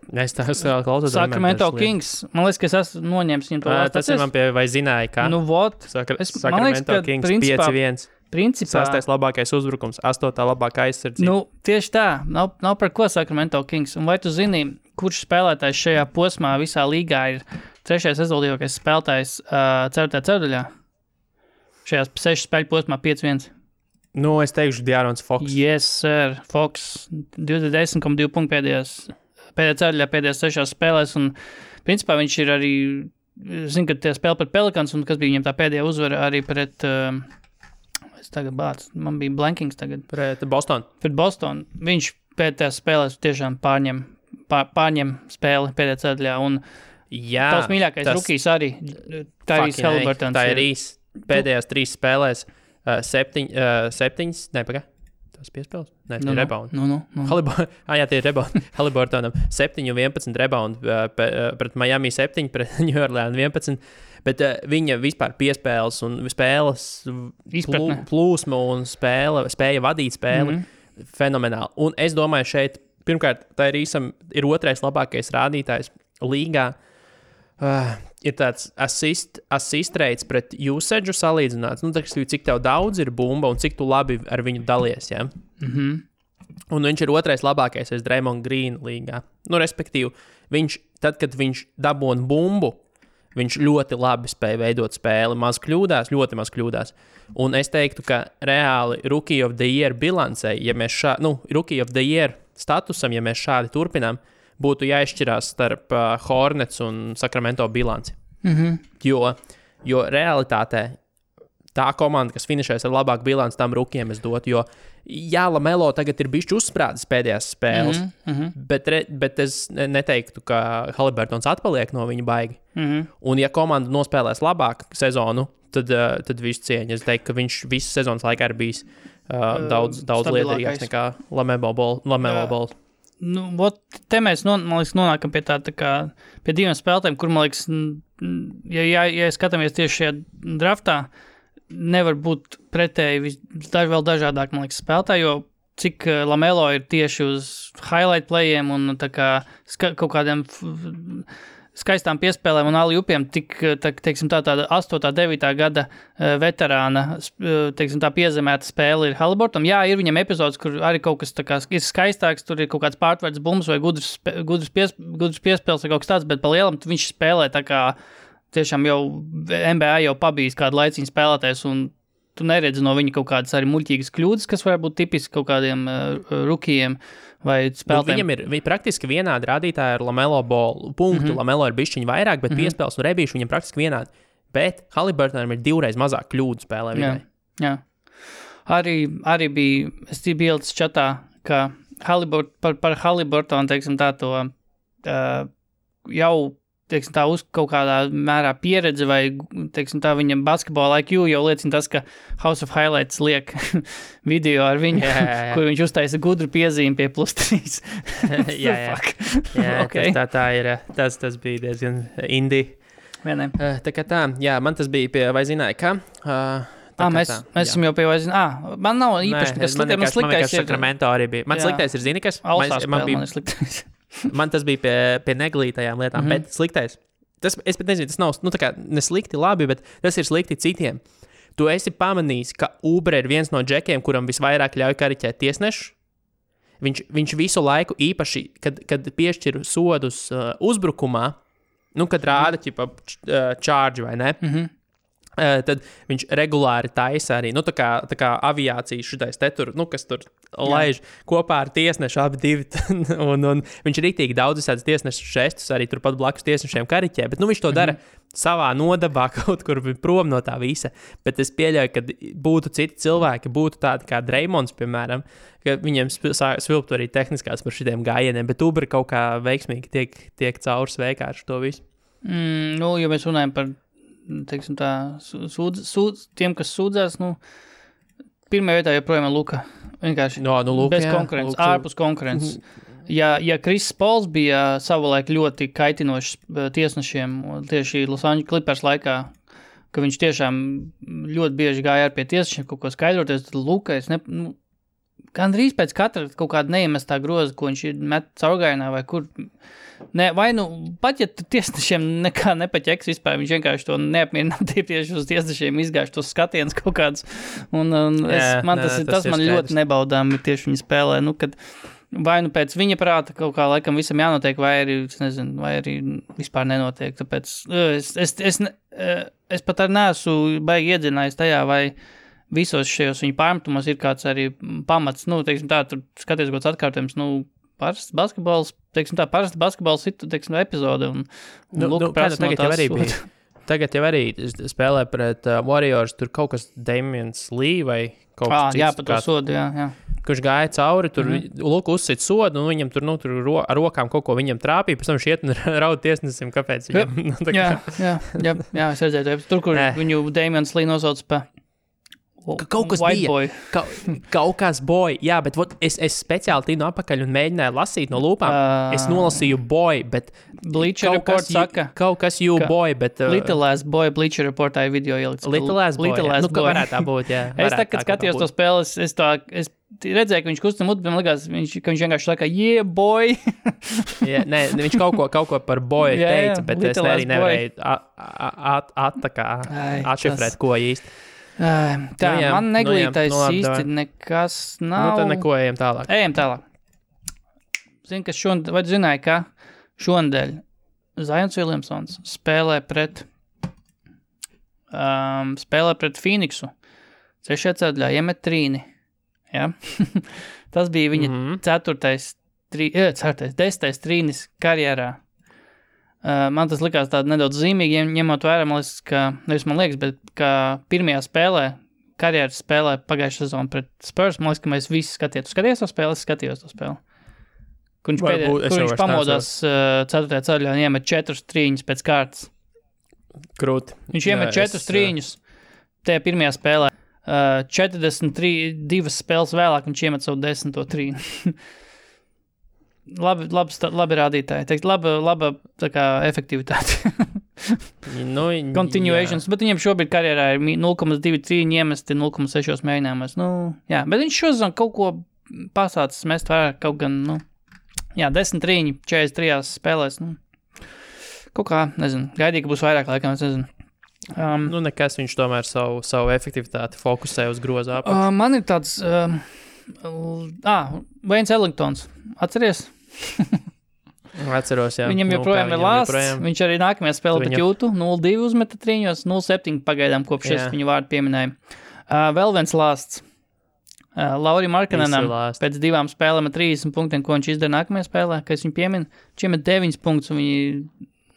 Es klausos. Sacramento Kings. Man liekas, ka es esmu noņēmis viņu to vārdu. Tas ir man pie, vai zināja, kā? Nu, vot. Sacramento Kings 5-1. Principā. 6. labākais uzbrukums, 8. labākā aizsardzība. Nu, tieši tā. Nav par ko Sacramento Kings. Un vai tu zini, kurš spēlētājs šajā posmā visā līgā ir 3. rezultātīvākais spēlētājs 4. ceturdaļā? Šajās 6 spēļu posmā 5-1. Nu, es teikšu De'Aaron Fox. Yes, sir. Fox 10,2 punktu pēdējā ceturdaļā, pēdējās 6 spēlēs. Un, principā, viņš ir arī, zinu, ka tie spēle pret Pelicans, un kas bija viņam tā pēdējā uzvara arī pret... Tagad bāc, man bija blankings tagad. Pret Boston. Pret Boston. Viņš pēdējās spēlēs tiešām pārņem spēli pēdējā ceturdaļā. Un tavs mīļākais rukijs arī, Tyrese Haliburtons. Tā ir īsti. Pēdējās 3 spēlēs 7, tas piespēles? Nē, tie ir rebound. Tie ir rebound. Haliburtonam 7-11 rebound pret Miami 7, pret New Orleans 11. Bet viņa vispār piespēles un spēles plūsma un spēja vadīt spēli fenomenāli. Un es domāju, šeit, pirmkārt, tā ir 2. labākais rādītājs līgā. Ir tāds assist rates pret usage salīdzināts. Nu, cik tev daudz ir bumba un cik tu labi ar viņu dalies, ja? Un viņš ir 2. labākais aiz Draymond Green līgā. Nu, respektīvi, tad, kad viņš dabūna bumbu, viņš ļoti labi spēja veidot spēli, ļoti maz kļūdās. Un es teiktu, ka reāli Rookie of the Year bilancei, ja mēs Rookie of the Year statusam, ja mēs šādi turpinām, būtu jāizšķirās starp Hornets un Sacramento bilanci. Jo realitātē tā komanda, kas finišēs ar labāku bilanci, tam rukiem es dotu, jo LaMelo tagad ir bišķi uzsprādzis pēdējās spēles, bet es neteiktu, ka Haliburtons atpaliek no viņa baigi. Un ja komanda nospēlēs labāk sezonu, tad visu cieņu. Es teiktu, ka viņš visu sezonas laikā ir bijis daudz liederīgāks nekā LaMelo Ball. Nu, te mēs nonākam pie pie 2 spēlētājiem, kur, man liekas, ja skatāmies tieši šajā draftā, nevar būt pretēji vēl dažādāk, man liekas, spēlētāji, jo cik LaMelo ir tieši uz highlight playiem un kaut kādiem skaistām piespēlēm un alley-oopiem, teiksim, tāda 8. 9. gada veterāna, teiksim, tā piezemēta spēle ir Haliburtonam. Jā, ir viņam epizodes, kur arī kaut kas ir skaistāks, tur ir kaut kāds pārtverts bumbas vai gudrs piespēles vai kaut kas tāds, bet pa lielam viņš spēlē tā kā tiešām jau NBA jau pabijis kādu laiciņu spēlētājs, un tu neredzi no viņa kaut kādas arī muļķīgas kļūdas, kas var būt tipiski kaut kādiem rukijiem vai spēlētājiem. Viņam ir praktiski vienādi rādītāji ar LaMelo Ball punktu. LaMelo ir bišķiņi vairāk, bet piespēles un rebīši viņam praktiski vienādi. Bet Haliburtonam ir 2 reiz mazāk kļūdu spēlē. Jā. Arī bija, es biju ielicis čatā, ka par Haliburtonu, teiksim, tā to jau teiksim, tā uz kaut kādā mērā pieredze vai, teiksim, tā viņa basketbola IQ jau liecina tas, ka House of Highlights liek video ar viņu, kur viņš uztaisa gudru piezīmi pie +3. jā, okay. tā ir, tas bija diezgan indie. Vienai. Tā kā tā, jā, man tas bija pie, vai zināja, ka? Mēs esam jau pie, vai zināja, man nav īpaši nekas sliktais. Man sliktais ir Sacramento arī bija. Man sliktais ir, zini, kas? Man ir sliktais. Man tas bija pie neglītajām lietām, bet sliktais. Es pat nezinu, tas nav tā kā neslikti labi, bet tas ir slikti citiem. Tu esi pamanījis, ka Uber ir viens no džekiem, kuram visvairāk ļauj kariķēt tiesnešu. Viņš visu laiku īpaši, kad piešķir sodus uzbrukumā, kad rāda charge vai ne, tad viņš regulāri taisa arī, tā kā aviācijas šitais te tur, kas tur laiž kopā ar tiesnešu abi divi, un viņš rītīgi daudz visādas tiesnešu žestus arī turpat blakus tiesnešiem kariķē, bet viņš to dara savā nodabā kaut kur prom no tā visa, bet es pieļauju, ka būtu citi cilvēki, būtu tādi kā Draymonds, piemēram, ka viņiem svilptu arī tehniskās par šitiem gājieniem, bet Uber kaut kā veiksmīgi tiek caurs vienkārši to visu. Ja mēs runājam par teiksim tā, tiem, kas sūdzās, pirmajā vietā joprojām ir Luka. Vienkārši bez konkurences, ārpus konkurences. Ja Chris Pauls bija savulaik ļoti kaitinošs tiesnešiem, tieši Los Angeles Clippers laikā, ka viņš tiešām ļoti bieži gāja ar pie tiesnešiem kaut ko skaidroties, tad Luka, gandrīz pēc katra kaut kāda neiemestā groza, ko viņš ir met caurgājienā vai kur. Ne, vai pat ja tiesnešiem nekā nepaķeks vispār, viņš vienkārši to neapmierināt tieši uz tiesnešiem izgājuši tos skatienus kaut kādus. Tas man ļoti nebaudām tieši viņa spēlē, kad vai pēc viņa prāta kaut kā laikam visam jānotiek, vai arī vispār nenotiek. Tāpēc es pat arī neesmu baigi iedzinājis tajā, vai visos šajos viņa pārmetumos ir kāds arī pamats, teiksim tā, tur skaties kāds atkārtojums, parasts basketbols, teiksim tā, parasta basketbols epizode, un Luka prasa no tās. Tagad jau arī spēlē pret Warriors, tur kaut kas Damians Lee vai kaut kas cits. Jā, par to sodu, jā. Kurš gāja cauri, tur Luka uzsit sodu, un viņam tur ar rokām kaut ko viņam trāpīja, pēc tam šiet un raud tiesnesim, kāpēc viņam. Jā, es redzēju, tur, kur viņu Damians Lee nosauc pa kaut kas bija. Kaut kas boy. Jā, bet es speciāli tīnu apakaļ un mēģināju lasīt no lūpām. Es nolasīju boy, bet Bleacher Report saka. Kaut kas you boy, bet Little Ass Boy Bleacher Reportā video ielikts. Little Ass Boy. Ka varētu tā būt, jā. Es tā, kad skatījos to spēles, es redzēju, ka viņš kustina muti, man likās, ka viņš vienkārši saka, yeah, boy. Viņš kaut ko par boy teica, bet es arī nevarēju atšifrēt, ko īsti. Tā, man neglītais īsti nekas nav. Tad neko ejam tālāk. Ejam tālāk. Zini, ka vai tu zināji, ka šonadēļ Zions Williamsons spēlē pret Phoenixu. 6. ceturdaļā iemet trīni. Ja? Tas bija viņa 10. trīnis karjerā. Man tas likās tāda nedaudz zīmīgi, ņemot vērā, man liekas, bet kā pirmajā spēlē, karjeras spēlē pagājušā sezona pret Spurs, man liekas, ka mēs visi skatījām. Tu skaties to spēli? Es skatījos to spēli. Kur viņš pamodās 4. ceturdaļā un iemet 4 trīņus pēc kārtas. Krūti. Viņš iemet 4 trīņus tajā pirmajā spēlē. 42 spēles vēlāk viņš iemet savu 10. trīnu. Labi rādītāji, teikt, laba tā kā efektivitāte. Continuations, bet viņiem šobrīd karjerā ir 0,2 trīņi iemesti 0,6 mēģinājumos. Jā, bet viņš šozon kaut ko pasācis mest vairāk, kaut gan, 10 trīņi 43 spēlēs, kaut kā, nezinu, gaidīja, ka būs vairāk laikam, es nezinu. Nekas viņš tomēr savu efektivitāti fokusē uz groza apakšu. Man ir tāds, Waynes Ellingtons, atceries? Atceros, jā. Viņam joprojām ir lāsts, viņš arī nākamajā spēlē pret Jūtu, 0-2 uzmeta trīņos, 0-7 pagaidām, kopš es viņu vārdu pieminēju. Vēl viens lāsts. Lauri Markkanenam pēc 2 spēlēm ar 30 punktiem, ko viņš izdara nākamajā spēlē, kad es viņu pieminu, viņš iemet 9 punktus, un viņi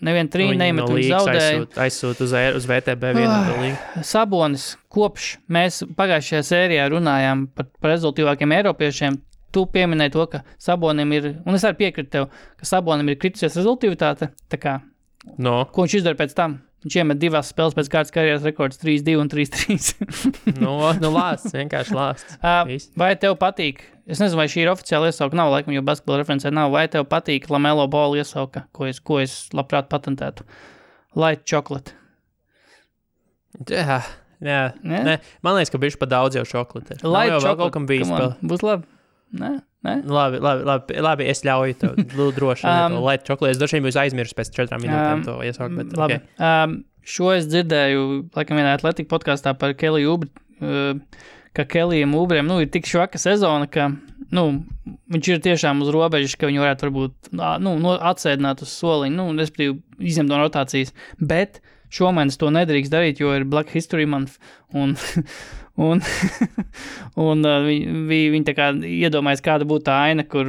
nevienu trīņu neiemet, viņi zaudēja. Aizsūt uz VTB vienu līgu. Sabonis, kopš mēs pagājušajā sērijā runājām par rezultīvākiem eiropiešiem, tu pieminēji to, ka Sabonim ir, un es arī piekritu tev, ka Sabonim ir kritusies rezultīvitāte, tā kā, ko viņš izdara pēc tam? Viņš iemet 2 spēles pēc kārtas karjeras rekords 3-2 un 3-3. Lāsts, vienkārši lāsts. Vai tev patīk, es nezinu, vai šī ir oficiāla iesauka, nav laikam, jo basketbola referencē nav, vai tev patīk Lamelo Ball iesauka, ko es labprāt patentētu? Light chocolate. Jā. Nē, man liekas, ka bišķi pa daudz jau šokolate. Light chocolate, kaut kam bijis. Būs labi. Nē? Labi, es ļauju tev droši. Light chocolate, es droši vien būs aizmirst pēc 4 minūtēm to iesaukt, bet labi. Okay. Šo es dzirdēju, laikam vienā Athletic podcastā par Keliju Ubri, ka Kelijam Ubriem, ir tik švaka sezona, ka, viņš ir tiešām uz robežas, ka viņi varētu varbūt, atsēdināt uz soliņu, respektīvi izņemt no rotācijas, bet šomēnes to nedrīkst darīt, jo ir Black History Month, un viņi tā kā iedomājas, kāda būtu tā aina, kur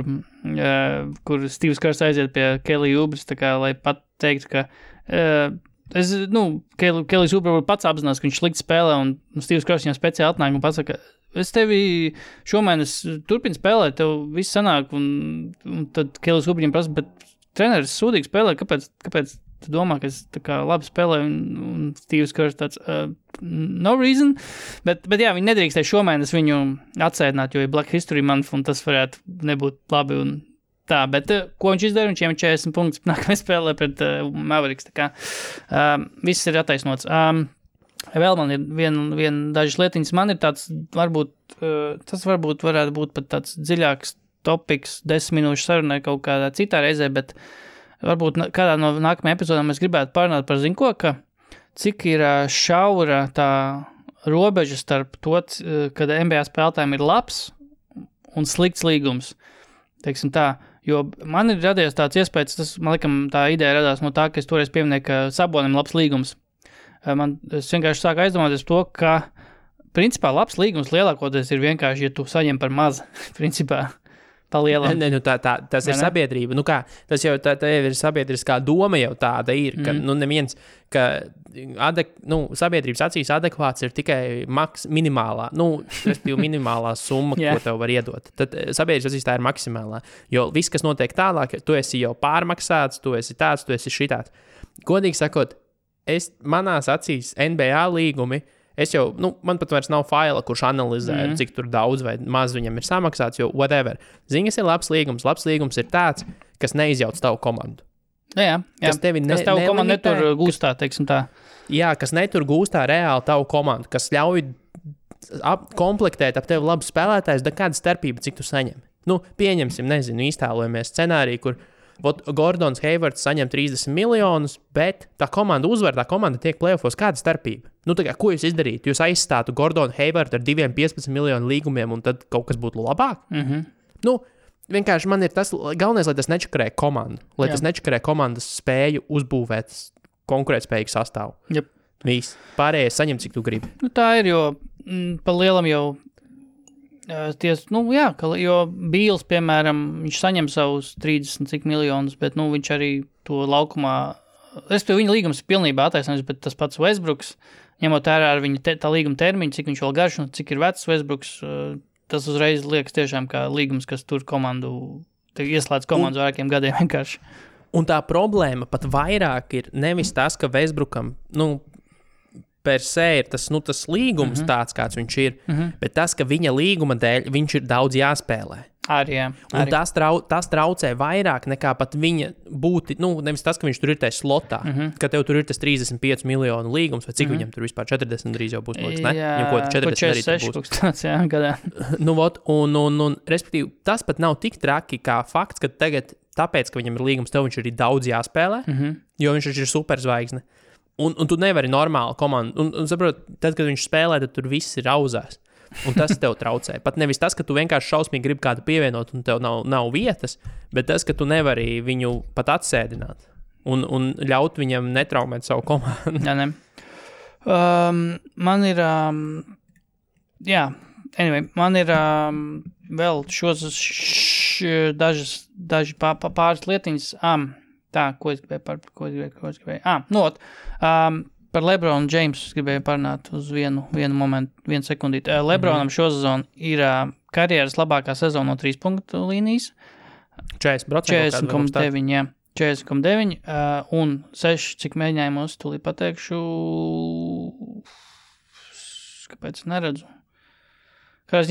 Steve's Kerrs aiziet pie Kelija Ubris, tā kā, lai pat teiktu, ka Kelijs Ubris var pats apzinās, ka viņš slikti spēlē, un Steve's Kerrs viņam speciāli atnāk un pasaka, es tevi šomēnes turpinu spēlēt, tev viss sanāk, un tad Kelijs Ubris viņam prasa, bet treneris sūdīgi spēlē, kāpēc tu domā, ka es tā kā labi spēlēju, un Steve's Kerrs tāds, no reason, bet jā, viņi nedrīkstēja šomēnes viņu atsēdināt, jo ir Black History Month, un tas varētu nebūt labi, un tā, bet ko viņš izdara, viņš iemet 40 punktus, nākamajā spēlē pret Mavericks, tā kā viss ir attaisnots. Vēl man ir viena dažas lietiņas. Man ir tāds, tas varbūt varētu būt pat tāds dziļāks topiks 10 minūšu sarunai kaut kādā citā reizē, bet varbūt kādā no nākamajām epizodām mēs gribētu parunāt par zinko, ka cik ir šaura tā robeža starp to, kad NBA spēlētājiem ir labs un slikts līgums. Teiksim tā, jo man ir radies tāds iespējas, tas, man likam, tā ideja radās no tā, ka es toreiz pieminēju, ka Sabonim labs līgums. Es vienkārši sāku aizdomāties to, ka principā labs līgums lielākoties ir vienkārši, ja tu saņem par maz, principā. Ne, tas ir sabiedrība. Tas jau tā ir sabiedriskā doma jau tāda ir, ka neviens, ka sabiedrības acīs adekvāts ir tikai minimālā, minimālā summa, ko tev var iedot. Tad sabiedrības acīs tā ir maksimālā, jo viss, kas notiek tālāk, tu esi jau pārmaksāts, tu esi tāds, tu esi šitāds. Godīgi sakot, manās acīs NBA līgumi, man pat vairs nav faila, kurš analizē, cik tur daudz vai maz viņam ir samaksāts, jo whatever. Ziņas ir labs līgums. Labs līgums ir tāds, kas neizjauc tavu komandu. Jā. Kas tavu komandu netur gūstā, teiksim tā. Jā, kas netur gūstā reāli tavu komandu, kas ļauj komplektēt ap tevi labu spēlētājs, da kāda starpība, cik tu saņem. Pieņemsim, iztēlojamies scenāriju, kur Gordons Haywards saņem 30 miljonus, bet tā komanda uzvar, tā komanda tiek play-offos. Kāda starpība? Ko jūs izdarītu? Jūs aizstātu Gordonu Haywardu ar 2,15 miljonu līgumiem, un tad kaut kas būtu labāk? Vienkārši man ir tas galvenais, lai tas nečakarē komandu. Lai tas nečakarē komandas spēju uzbūvēt konkurētspējīgu sastāvu. Yep. Viss. Pārējais saņem, cik tu gribi. Tā ir, jo pa lielam jau jo Bīls, piemēram, viņš saņem savus 30 miljonus, bet, viņš arī to laukumā, respektīvi viņa līgums ir pilnībā attaisnojums, bet tas pats Westbrooks, ņemot ārā ar viņa tā līguma termiņu, cik viņš vēl garš un cik ir vecs Westbrooks, tas uzreiz liekas tiešām kā līgums, kas tur ieslēdz komandu vairākiem gadiem vienkārši. Un tā problēma pat vairāk ir nevis tas, ka Westbrookam, per se ir tas līgums tāds, kāds viņš ir, bet tas, ka viņa līguma dēļ viņš ir daudz jāspēlē. Arī. Un tas traucē vairāk nekā pat viņa būti, nevis tas, ka viņš tur ir tajā slotā, ka tev tur ir tas 35 miljonu līgums, vai cik viņam tur vispār 40 drīz jau būs, liekas, ne? Jā, viņam ko 46 būs. Tāds, jā, gadā. Un respektīvi, tas pat nav tik traki kā fakts, ka tagad, tāpēc, ka viņam ir līgums, tev viņš ir daudz jāspēlē, jo viņš ir superzvaigzne. Un tu nevari normāli komandu. Un saprot, tad, kad viņš spēlē, tad tur viss ir auzās. Un tas tev traucē. Pat nevis tas, ka tu vienkārši šausmīgi gribi kādu pievienot un tev nav vietas, bet tas, ka tu nevari viņu pat atsēdināt un ļaut viņam netraumēt savu komandu. Jā, ne. Man ir... man ir vēl daži pāris lietiņas... Tā, ko es gribēju? Par LeBronu Jamesu gribēju parunāt uz vienu momentu, vienu sekundīti. LeBronam šo sezonu ir karjeras labākā sezona no 3 punktu līnijas. 40,9, jā. 40,9 un 6, cik mēģinājumos, tūlīt pateikšu, kāpēc neredzu. Jo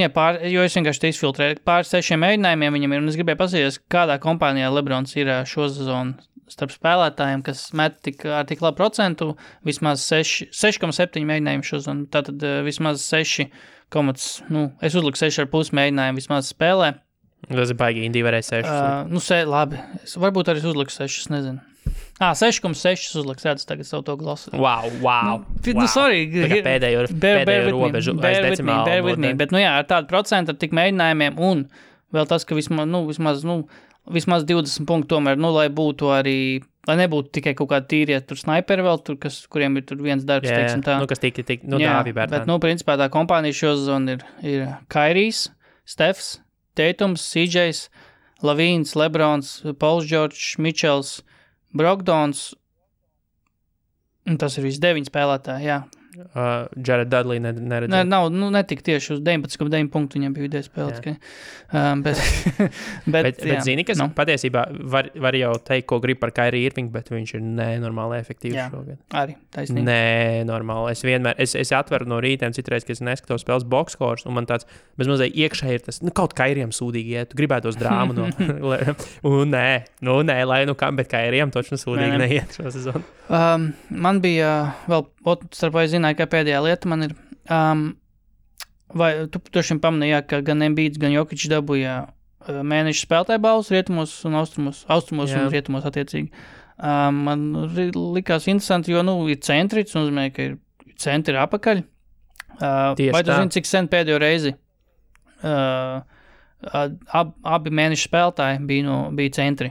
es vienkārši te izfiltrēju. Pār 6 mēģinājumiem viņam ir, un es gribēju pasīties, kādā kompānijā LeBrons ir šo sezonu starp spēlētājiem, kas met tik labu procentu, vismaz 6,7 mēģinājumu šo sezonu. Tātad vismaz 6, es uzliku 6,5 mēģinājumu vismaz spēlē. Tas ir baigi, Indija varēja 6. Labi. Varbūt arī uzliku 6, es nezinu. 6,6 uzliks, redz tagad savu to glasu. Wow. Sorry. Pēdējo robežu aiz decimālu. Bear with me. Bet, ar tādu procentu, ar tik mēģinājumiem un vēl tas, ka vismaz 20 punktu tomēr, lai būtu arī, lai nebūtu tikai kaut kādi tīrie tur snaiperi vēl, kuriem ir tur viens darbs, teiksim tā. Kas tik, dāvi bērtāni. Bet, principā tā kompānija šo sezonu ir Kairijs, Stefs, Teitums, CJs, Lavīns, Lebrons, Pauls Džordžs, Mičels, Brogdons, un tas ir visi 9 spēlētāji, jā. Jared Dudley neredzēja. Nav, netika tieši uz 19,9 punktu viņam bija vidēji spēlēt. Bet zini, kas patiesībā var jau teikt, ko grib par Kyrie Irvingu, bet viņš ir nenormāli efektīvs šogad. Arī, taisnīgi. Nenormāli. Es atveru no rītiem citreiz, kad es neskatos spēles boxscores, un man tāds bezmazliet iekšē ir tas, kaut Kyriem sūdīgi iet, tu gribētos drāmu nē, lai kam, bet Kyriem točno sūdīgi neiet šo sezonu. Man bija vēl, starp vai zinu, zināju, ka pēdējā lieta man ir, vai tu šim pamanīji, ka gan Embiids, gan Jokic dabūja mēneša spēlētāju balvas rietumos un austrumos un rietumos attiecīgi. Man likās interesanti, jo, ir centri, tas nozīmē, ka ir centri apakaļ. Vai tu zini, cik sen pēdējo reizi abi mēneša spēlētāji bija centri?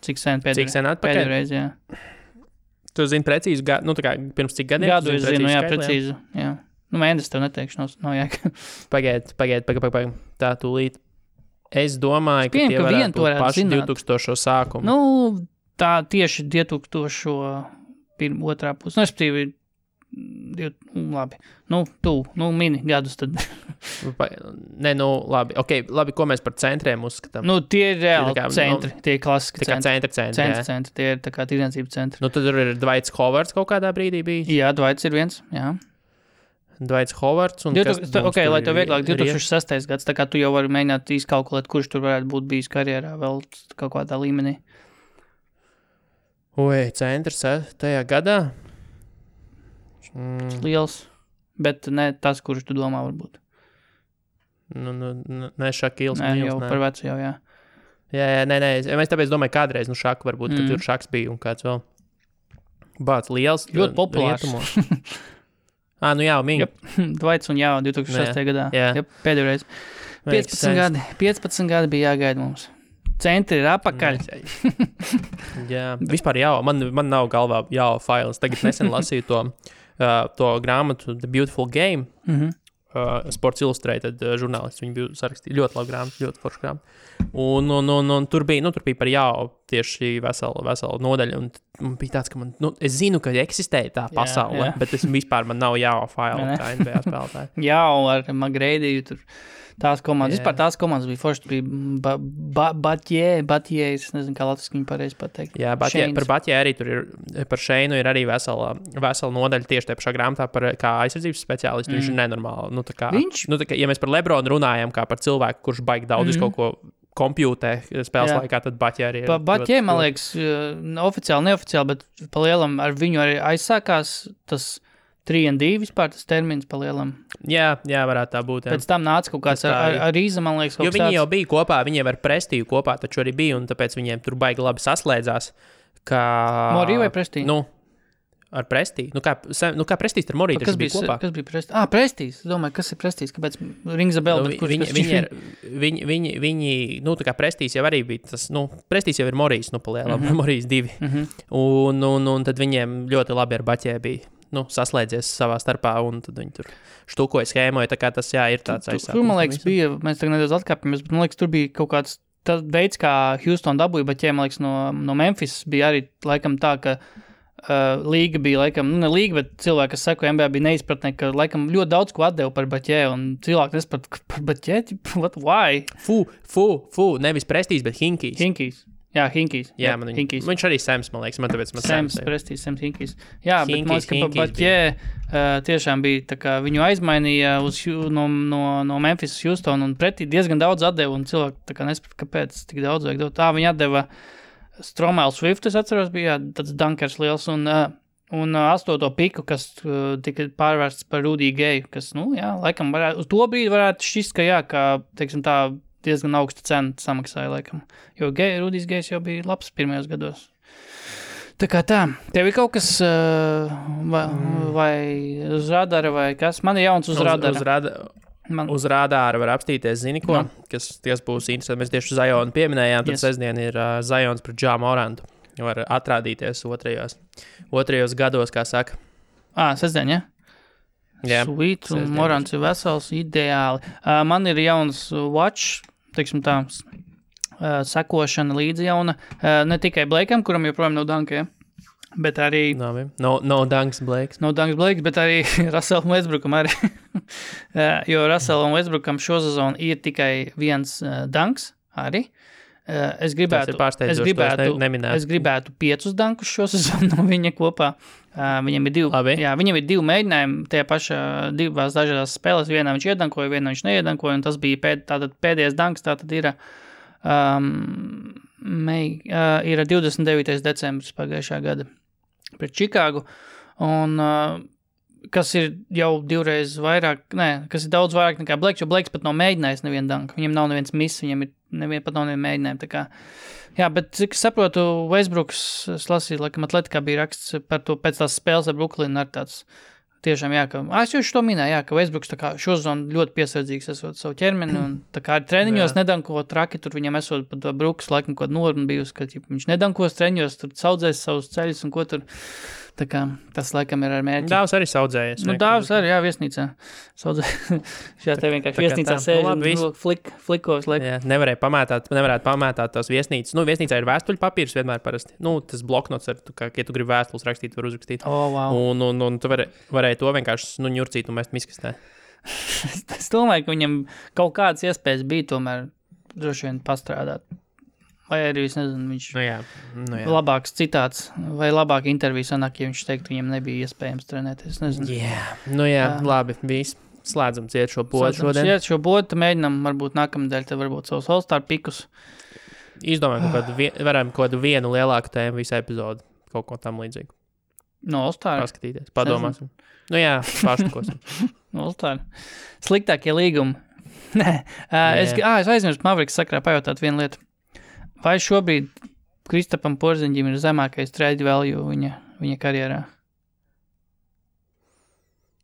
Cik sen pēdējo reizi, jā. Tu zini precīzi, tā kā pirms cik gadiem? Gadu es zinu, jā, precīzi, jā. Mēnesis tev neteikšu, nav jēga. Pagaid, tā tūlīt. Es domāju, ka tie varētu būt paši 2000 sākumu. Tā tieši 2000 otrā pusi. Respektīvi, labi. Mini gadus tad. Labi. Labi, ko mēs par centriem uzskatām? Tie ir reāli centri. Tie ir klasiski centri. Centri. Tie ir tā kā tirdzniecības centri. Tad tur ir Dwights Howards kaut kādā brīdī bijis? Jā, Dwights ir viens, jā. Dwights Howards un lai tev vieglāk 2006. gads, tā kā tu jau vari mēģināt izkalkulēt, kurš tur varētu būt bijis karjerā vēl kaut kādā līmenī. Centrs tajā gadā? Liels, bet ne tas, kurš tu domā varbūt. Ne Šakils. Nē, jau par vecu jau, jā. Jā, nē, es tāpēc domāju kādreiz, Šaku varbūt, ka tur Šaks bija un kāds vēl. Bāc, liels. Ļoti populārs. Jā, Minga. Dwights un 2006. gadā. Jā. Pēdējo reizi. 15 gadi bija jāgaida mums. Centri ir apakaļ. Jā, vispār man nav galvā fails. Tagad nesen lasīju to grāmatu The Beautiful Game. Sports Illustrated žurnālists. Viņi bija sarakstīja ļoti labu grāmatu, ļoti foršu grāmatu. Un tur bija par tieši veselu nodaļu. Un bija tāds, ka es zinu, ka eksistēja tā pasaule, bet man nav faila kā NBA spēlētāji. Ar McGrady tur. Tās komandas, vispār tās komandas bija forši, bija Batjē, es nezinu, kā latviski viņu pareizi pateikt. Jā, par Batjē arī tur ir, par Šeinu ir arī vesela nodaļa tieši tajā pašā grāmatā par kā aizsardzības speciālistu, viņš ir nenormāli. Ja mēs par Lebronu runājam, kā par cilvēku, kurš baigi daudz kaut ko kompjūtē spēles laikā, tad Batjē arī ir. Batjē, man liekas, oficiāli, neoficiāli, bet pa lielam ar viņu arī aizsākās tas 3-2 vispār tas termins pa lielam. Jā, varētu tā būt. Jā. Pēc tam nāca kaut kāds ar Rīza, man liekas, kaut kāds. Jo viņi jau bija kopā, viņiem ar Prestīju kopā, taču arī bija, un tāpēc viņiem tur baigi labi saslēdzās. Morī vai Prestīju? Ar Prestīju. Kā Prestīs ar Morī taču bija kopā? Kas bija Prestīs? Prestīs. Es domāju, kas ir Prestīs? Kāpēc Rings a bell? Viņi, tā kā Prestīs jau arī bija tas, Prestīs jau ir Morīs, pa lielam, Morīs 2. Un tad viņiem ļoti labi ar Baķē bija. Saslēdzies savā starpā, un tad viņi tur štukoja, schēmoja, tā kā tas, ir tāds aizsākums. Tur, man liekas, bija, mēs tagad nedaudz atkāpjamies, bet, man liekas, tur bija kaut kāds tas veids, kā Houston dabūja, bet, man liekas, no Memphis bija arī, laikam, tā, ka līga bija, laikam, ne līga, bet cilvēki, kas seko NBA, bija neizpratnē, ka, laikam, ļoti daudz ko atdeva par Baķē, un cilvēki nesprat par Baķē, what, why? Nevis Prestīs, bet Hinkijs. Jā, Hinkijs. Jā, viņš arī Sams, man liekas, tāpēc Sams, Prestīs, Sams, Hinkijs. Jā, bet man liekas, ka Baķē tiešām bija, tā kā viņu aizmainīja no Memphis uz Houston, un pretī diezgan daudz atdeva, un cilvēki tā kā nesprat, kāpēc tik daudz vajag dot. Viņi atdeva Stromēlu Swift, es atceros, bija tāds dunkers liels, un 8. piku, kas tika pārvērsts par Rudy Gayu, kas, laikam varētu, uz to brīdi varētu šķist, ka teiksim tā, diezgan augsta cena samaksāja, laikam. Jo Rudijs Gejs jau bija labs pirmajos gados. Tā kā tā. Tev ir kaut kas vai uz radara vai kas? Man ir jauns uz radara. Uz radāra var apstīties, zini ko, kas būs interesanti. Mēs tieši Zajonu pieminējām, tad sestdien ir Zajons pret Ja Morantu. Var atrādīties otrajos gados, kā saka. Sestdien, ja? Jā. Sweet, un Morants ir vesels, ideāli. Man ir jauns watch, teiksim tā, sekošana līdzi jauna. Ne tikai Blakeam, kuram joprojām nav danka, bet arī... No danks Blakes. No danks Blakes, bet arī Russellam Westbrookam arī. Jo Russellam Westbrookam šo sezonu ir tikai viens danks arī. Es gribētu 5 dankus šo sezonu no viņa kopā. Viņam ir 2. Jā, viņam ir 2 mēģinājumi tajā pašā 2 dažādās spēlēs. Vienā viņš iedankoja, vienā viņš neiedankoja, un tas bija pēdējais danks, tātad ir 29. decembris pagājušā gada pret Čikāgu. Un kas ir jau divreiz vairāk, kas ir daudz vairāk nekā Blakes, jo Blakes pat nav mēģinājis nevienu danku. Viņam nav neviens miss, viņam ir pat nav nevienu mēģinājumu. Tā kā, jā, bet cik saprotu, Westbrooks, es lasīju, laikam Atletikā bija raksts par to pēc tās spēles ar Brooklynu ar tāds tiešām, jā, ka, es jau to minēju, jā, ka Westbrooks tā kā šozonu ļoti piesardzīgs esot savu ķermeni un tā kā ar treniņos nedankot traki, tur viņam esot pat Brooks laikam kaut norma bijusi, ka viņš nedankos treniņos, tur saudzēs savus ceļus un ko tur. Tā kā tas laikam ir ar mērķi. Dāvs arī saudzējies. Dāvs arī, jā, viesnīcā. Šajā te vienkārši viesnīcā sēž un flikos. Jā, nevarētu pamētāt tās viesnīcas. Viesnīcā ir vēstuļu papīrs vienmēr parasti. Tas bloknots, ja tu gribi vēstules rakstīt, var uzrakstīt. Wow. Un tu varēji to vienkārši ņurcīt un mest miskastē. Es domāju, ka viņam kaut kādas iespējas bija tomēr droši vien pastrādāt. Vai arī, es nezinu, viņš labāks citāts vai labāk interviju sanāk, ja viņš teikt, viņam nebija iespējams trenēties, nezinu. Jā, labi, viss. Slēdzam ciet šo bodu šodien. Ciet šo bodu, mēģinam varbūt nākamnedēļ, tad varbūt savus All-Star pikus. Izdomājam, varam kaut kādu vienu lielāku tēmu visu epizodu, kaut ko tam līdzīgu. No All-Star? Paskatīties, padomāsim. Paštukosim. No All-Star. Sliktākie līgumi. Nē, es aizmirstu Mavericks sakrā pajautāt vienu lietu. Vai šobrīd Kristapam Porziņģim ir zemākais trade value viņa karjerā?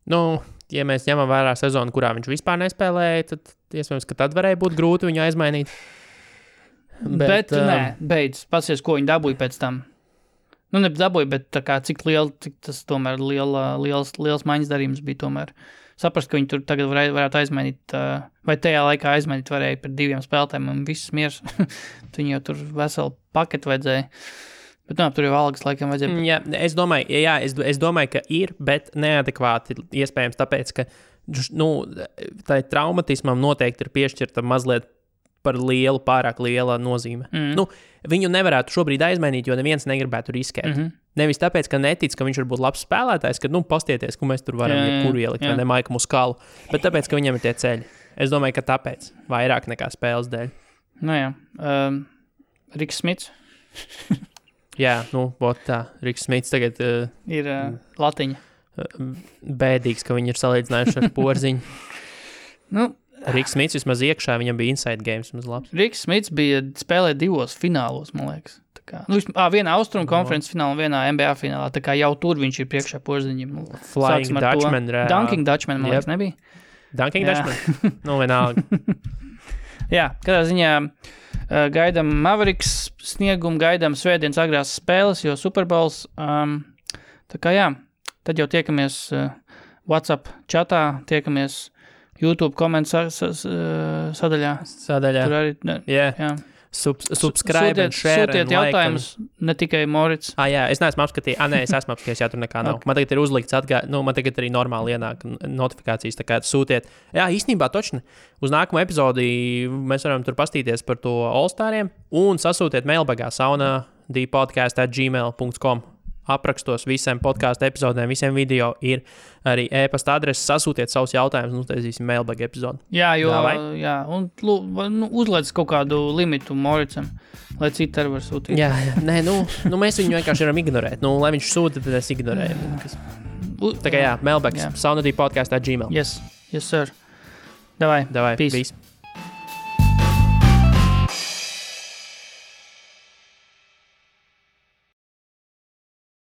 Ja mēs ņemam vērā sezonu, kurā viņš vispār nespēlēja, tad iespējams, ka tad varēja būt grūti viņu aizmainīt. Bet beidz, pasies, ko viņi dabūja pēc tam. Nedabūja, bet tā kā cik tas tomēr liels maiņas darījums bija tomēr. Saprast, ka viņi tur tagad varētu aizmainīt, vai tajā laikā aizmainīt varēja par 2 spēlētājiem un viss miers. Viņi jau tur veselu paketu vajadzēja. Bet tur jau algas laikam vajadzēja. Jā, es domāju, ka ir, bet neadekvāti iespējams, tāpēc, ka tai traumatismam noteikti ir piešķirta mazliet par pārāk liela nozīme. Viņu nevarētu šobrīd aizmainīt, jo neviens negribētu riskēt. Nevis tāpēc, ka netic, ka viņš var būt labs spēlētājs, ka, pastieties, ka mēs tur varam jebkuru ielikt, vai ne Maika Muskalu, bet tāpēc, ka viņam ir tie ceļi. Es domāju, ka tāpēc, vairāk nekā spēles dēļ. Riks Smits. Riks Smits tagad ir latiņa. Bēdīgs, ka viņi ir salīdzinājuši ar Porziņu. Riks Smits vismaz iekšā, viņam bija inside games vismaz labs. Riks Smits bija spēlēt 2 finālos, man liekas. Vienā Austrumu konferences finālā, vienā NBA finālā, tā kā jau tur viņš ir priekšā Porziņam. Flying Dutchman. Dunking Dutchman, man liekas, nebija? Dunking Dutchman? Vienalga. Jā, katrā ziņā gaidām Mavericks sniegumu, gaidām svētdienas agrās spēles, jo Super Bowls. Tā kā tad jau tiekamies WhatsApp chatā, tiekamies YouTube komentu sadaļā. Tur arī, Subscribe and share sūtiet and jautājumus, ne tikai Morits. Es neesmu apskatījis. Es esmu apskatījis, tur nekā nav. Okay. Man tagad ir uzlikts man tagad arī normāli ienāk notifikācijas, tā kā sūtiet. Īstenībā točni. Uz nākamo epizodi mēs varam tur pastīties par to All-Stariem un sasūtiet mailbagā sauna.dpodcast@gmail.com. Aprakstos visiem podkāstu epizodēm, visiem video ir arī e-pasta adreses. Sasūtiet savus jautājumus un uztaisīsim mailbag epizodu. Un uzliec kaut kādu limitu Moricam, lai citi arī var sūtīt. Mēs viņu vienkārši varam ignorēt. Lai viņš sūta, tad es ignorēju. Tā kā mailbags, sauna.dpodcast@gmail. Yes, sir. Davai, peace.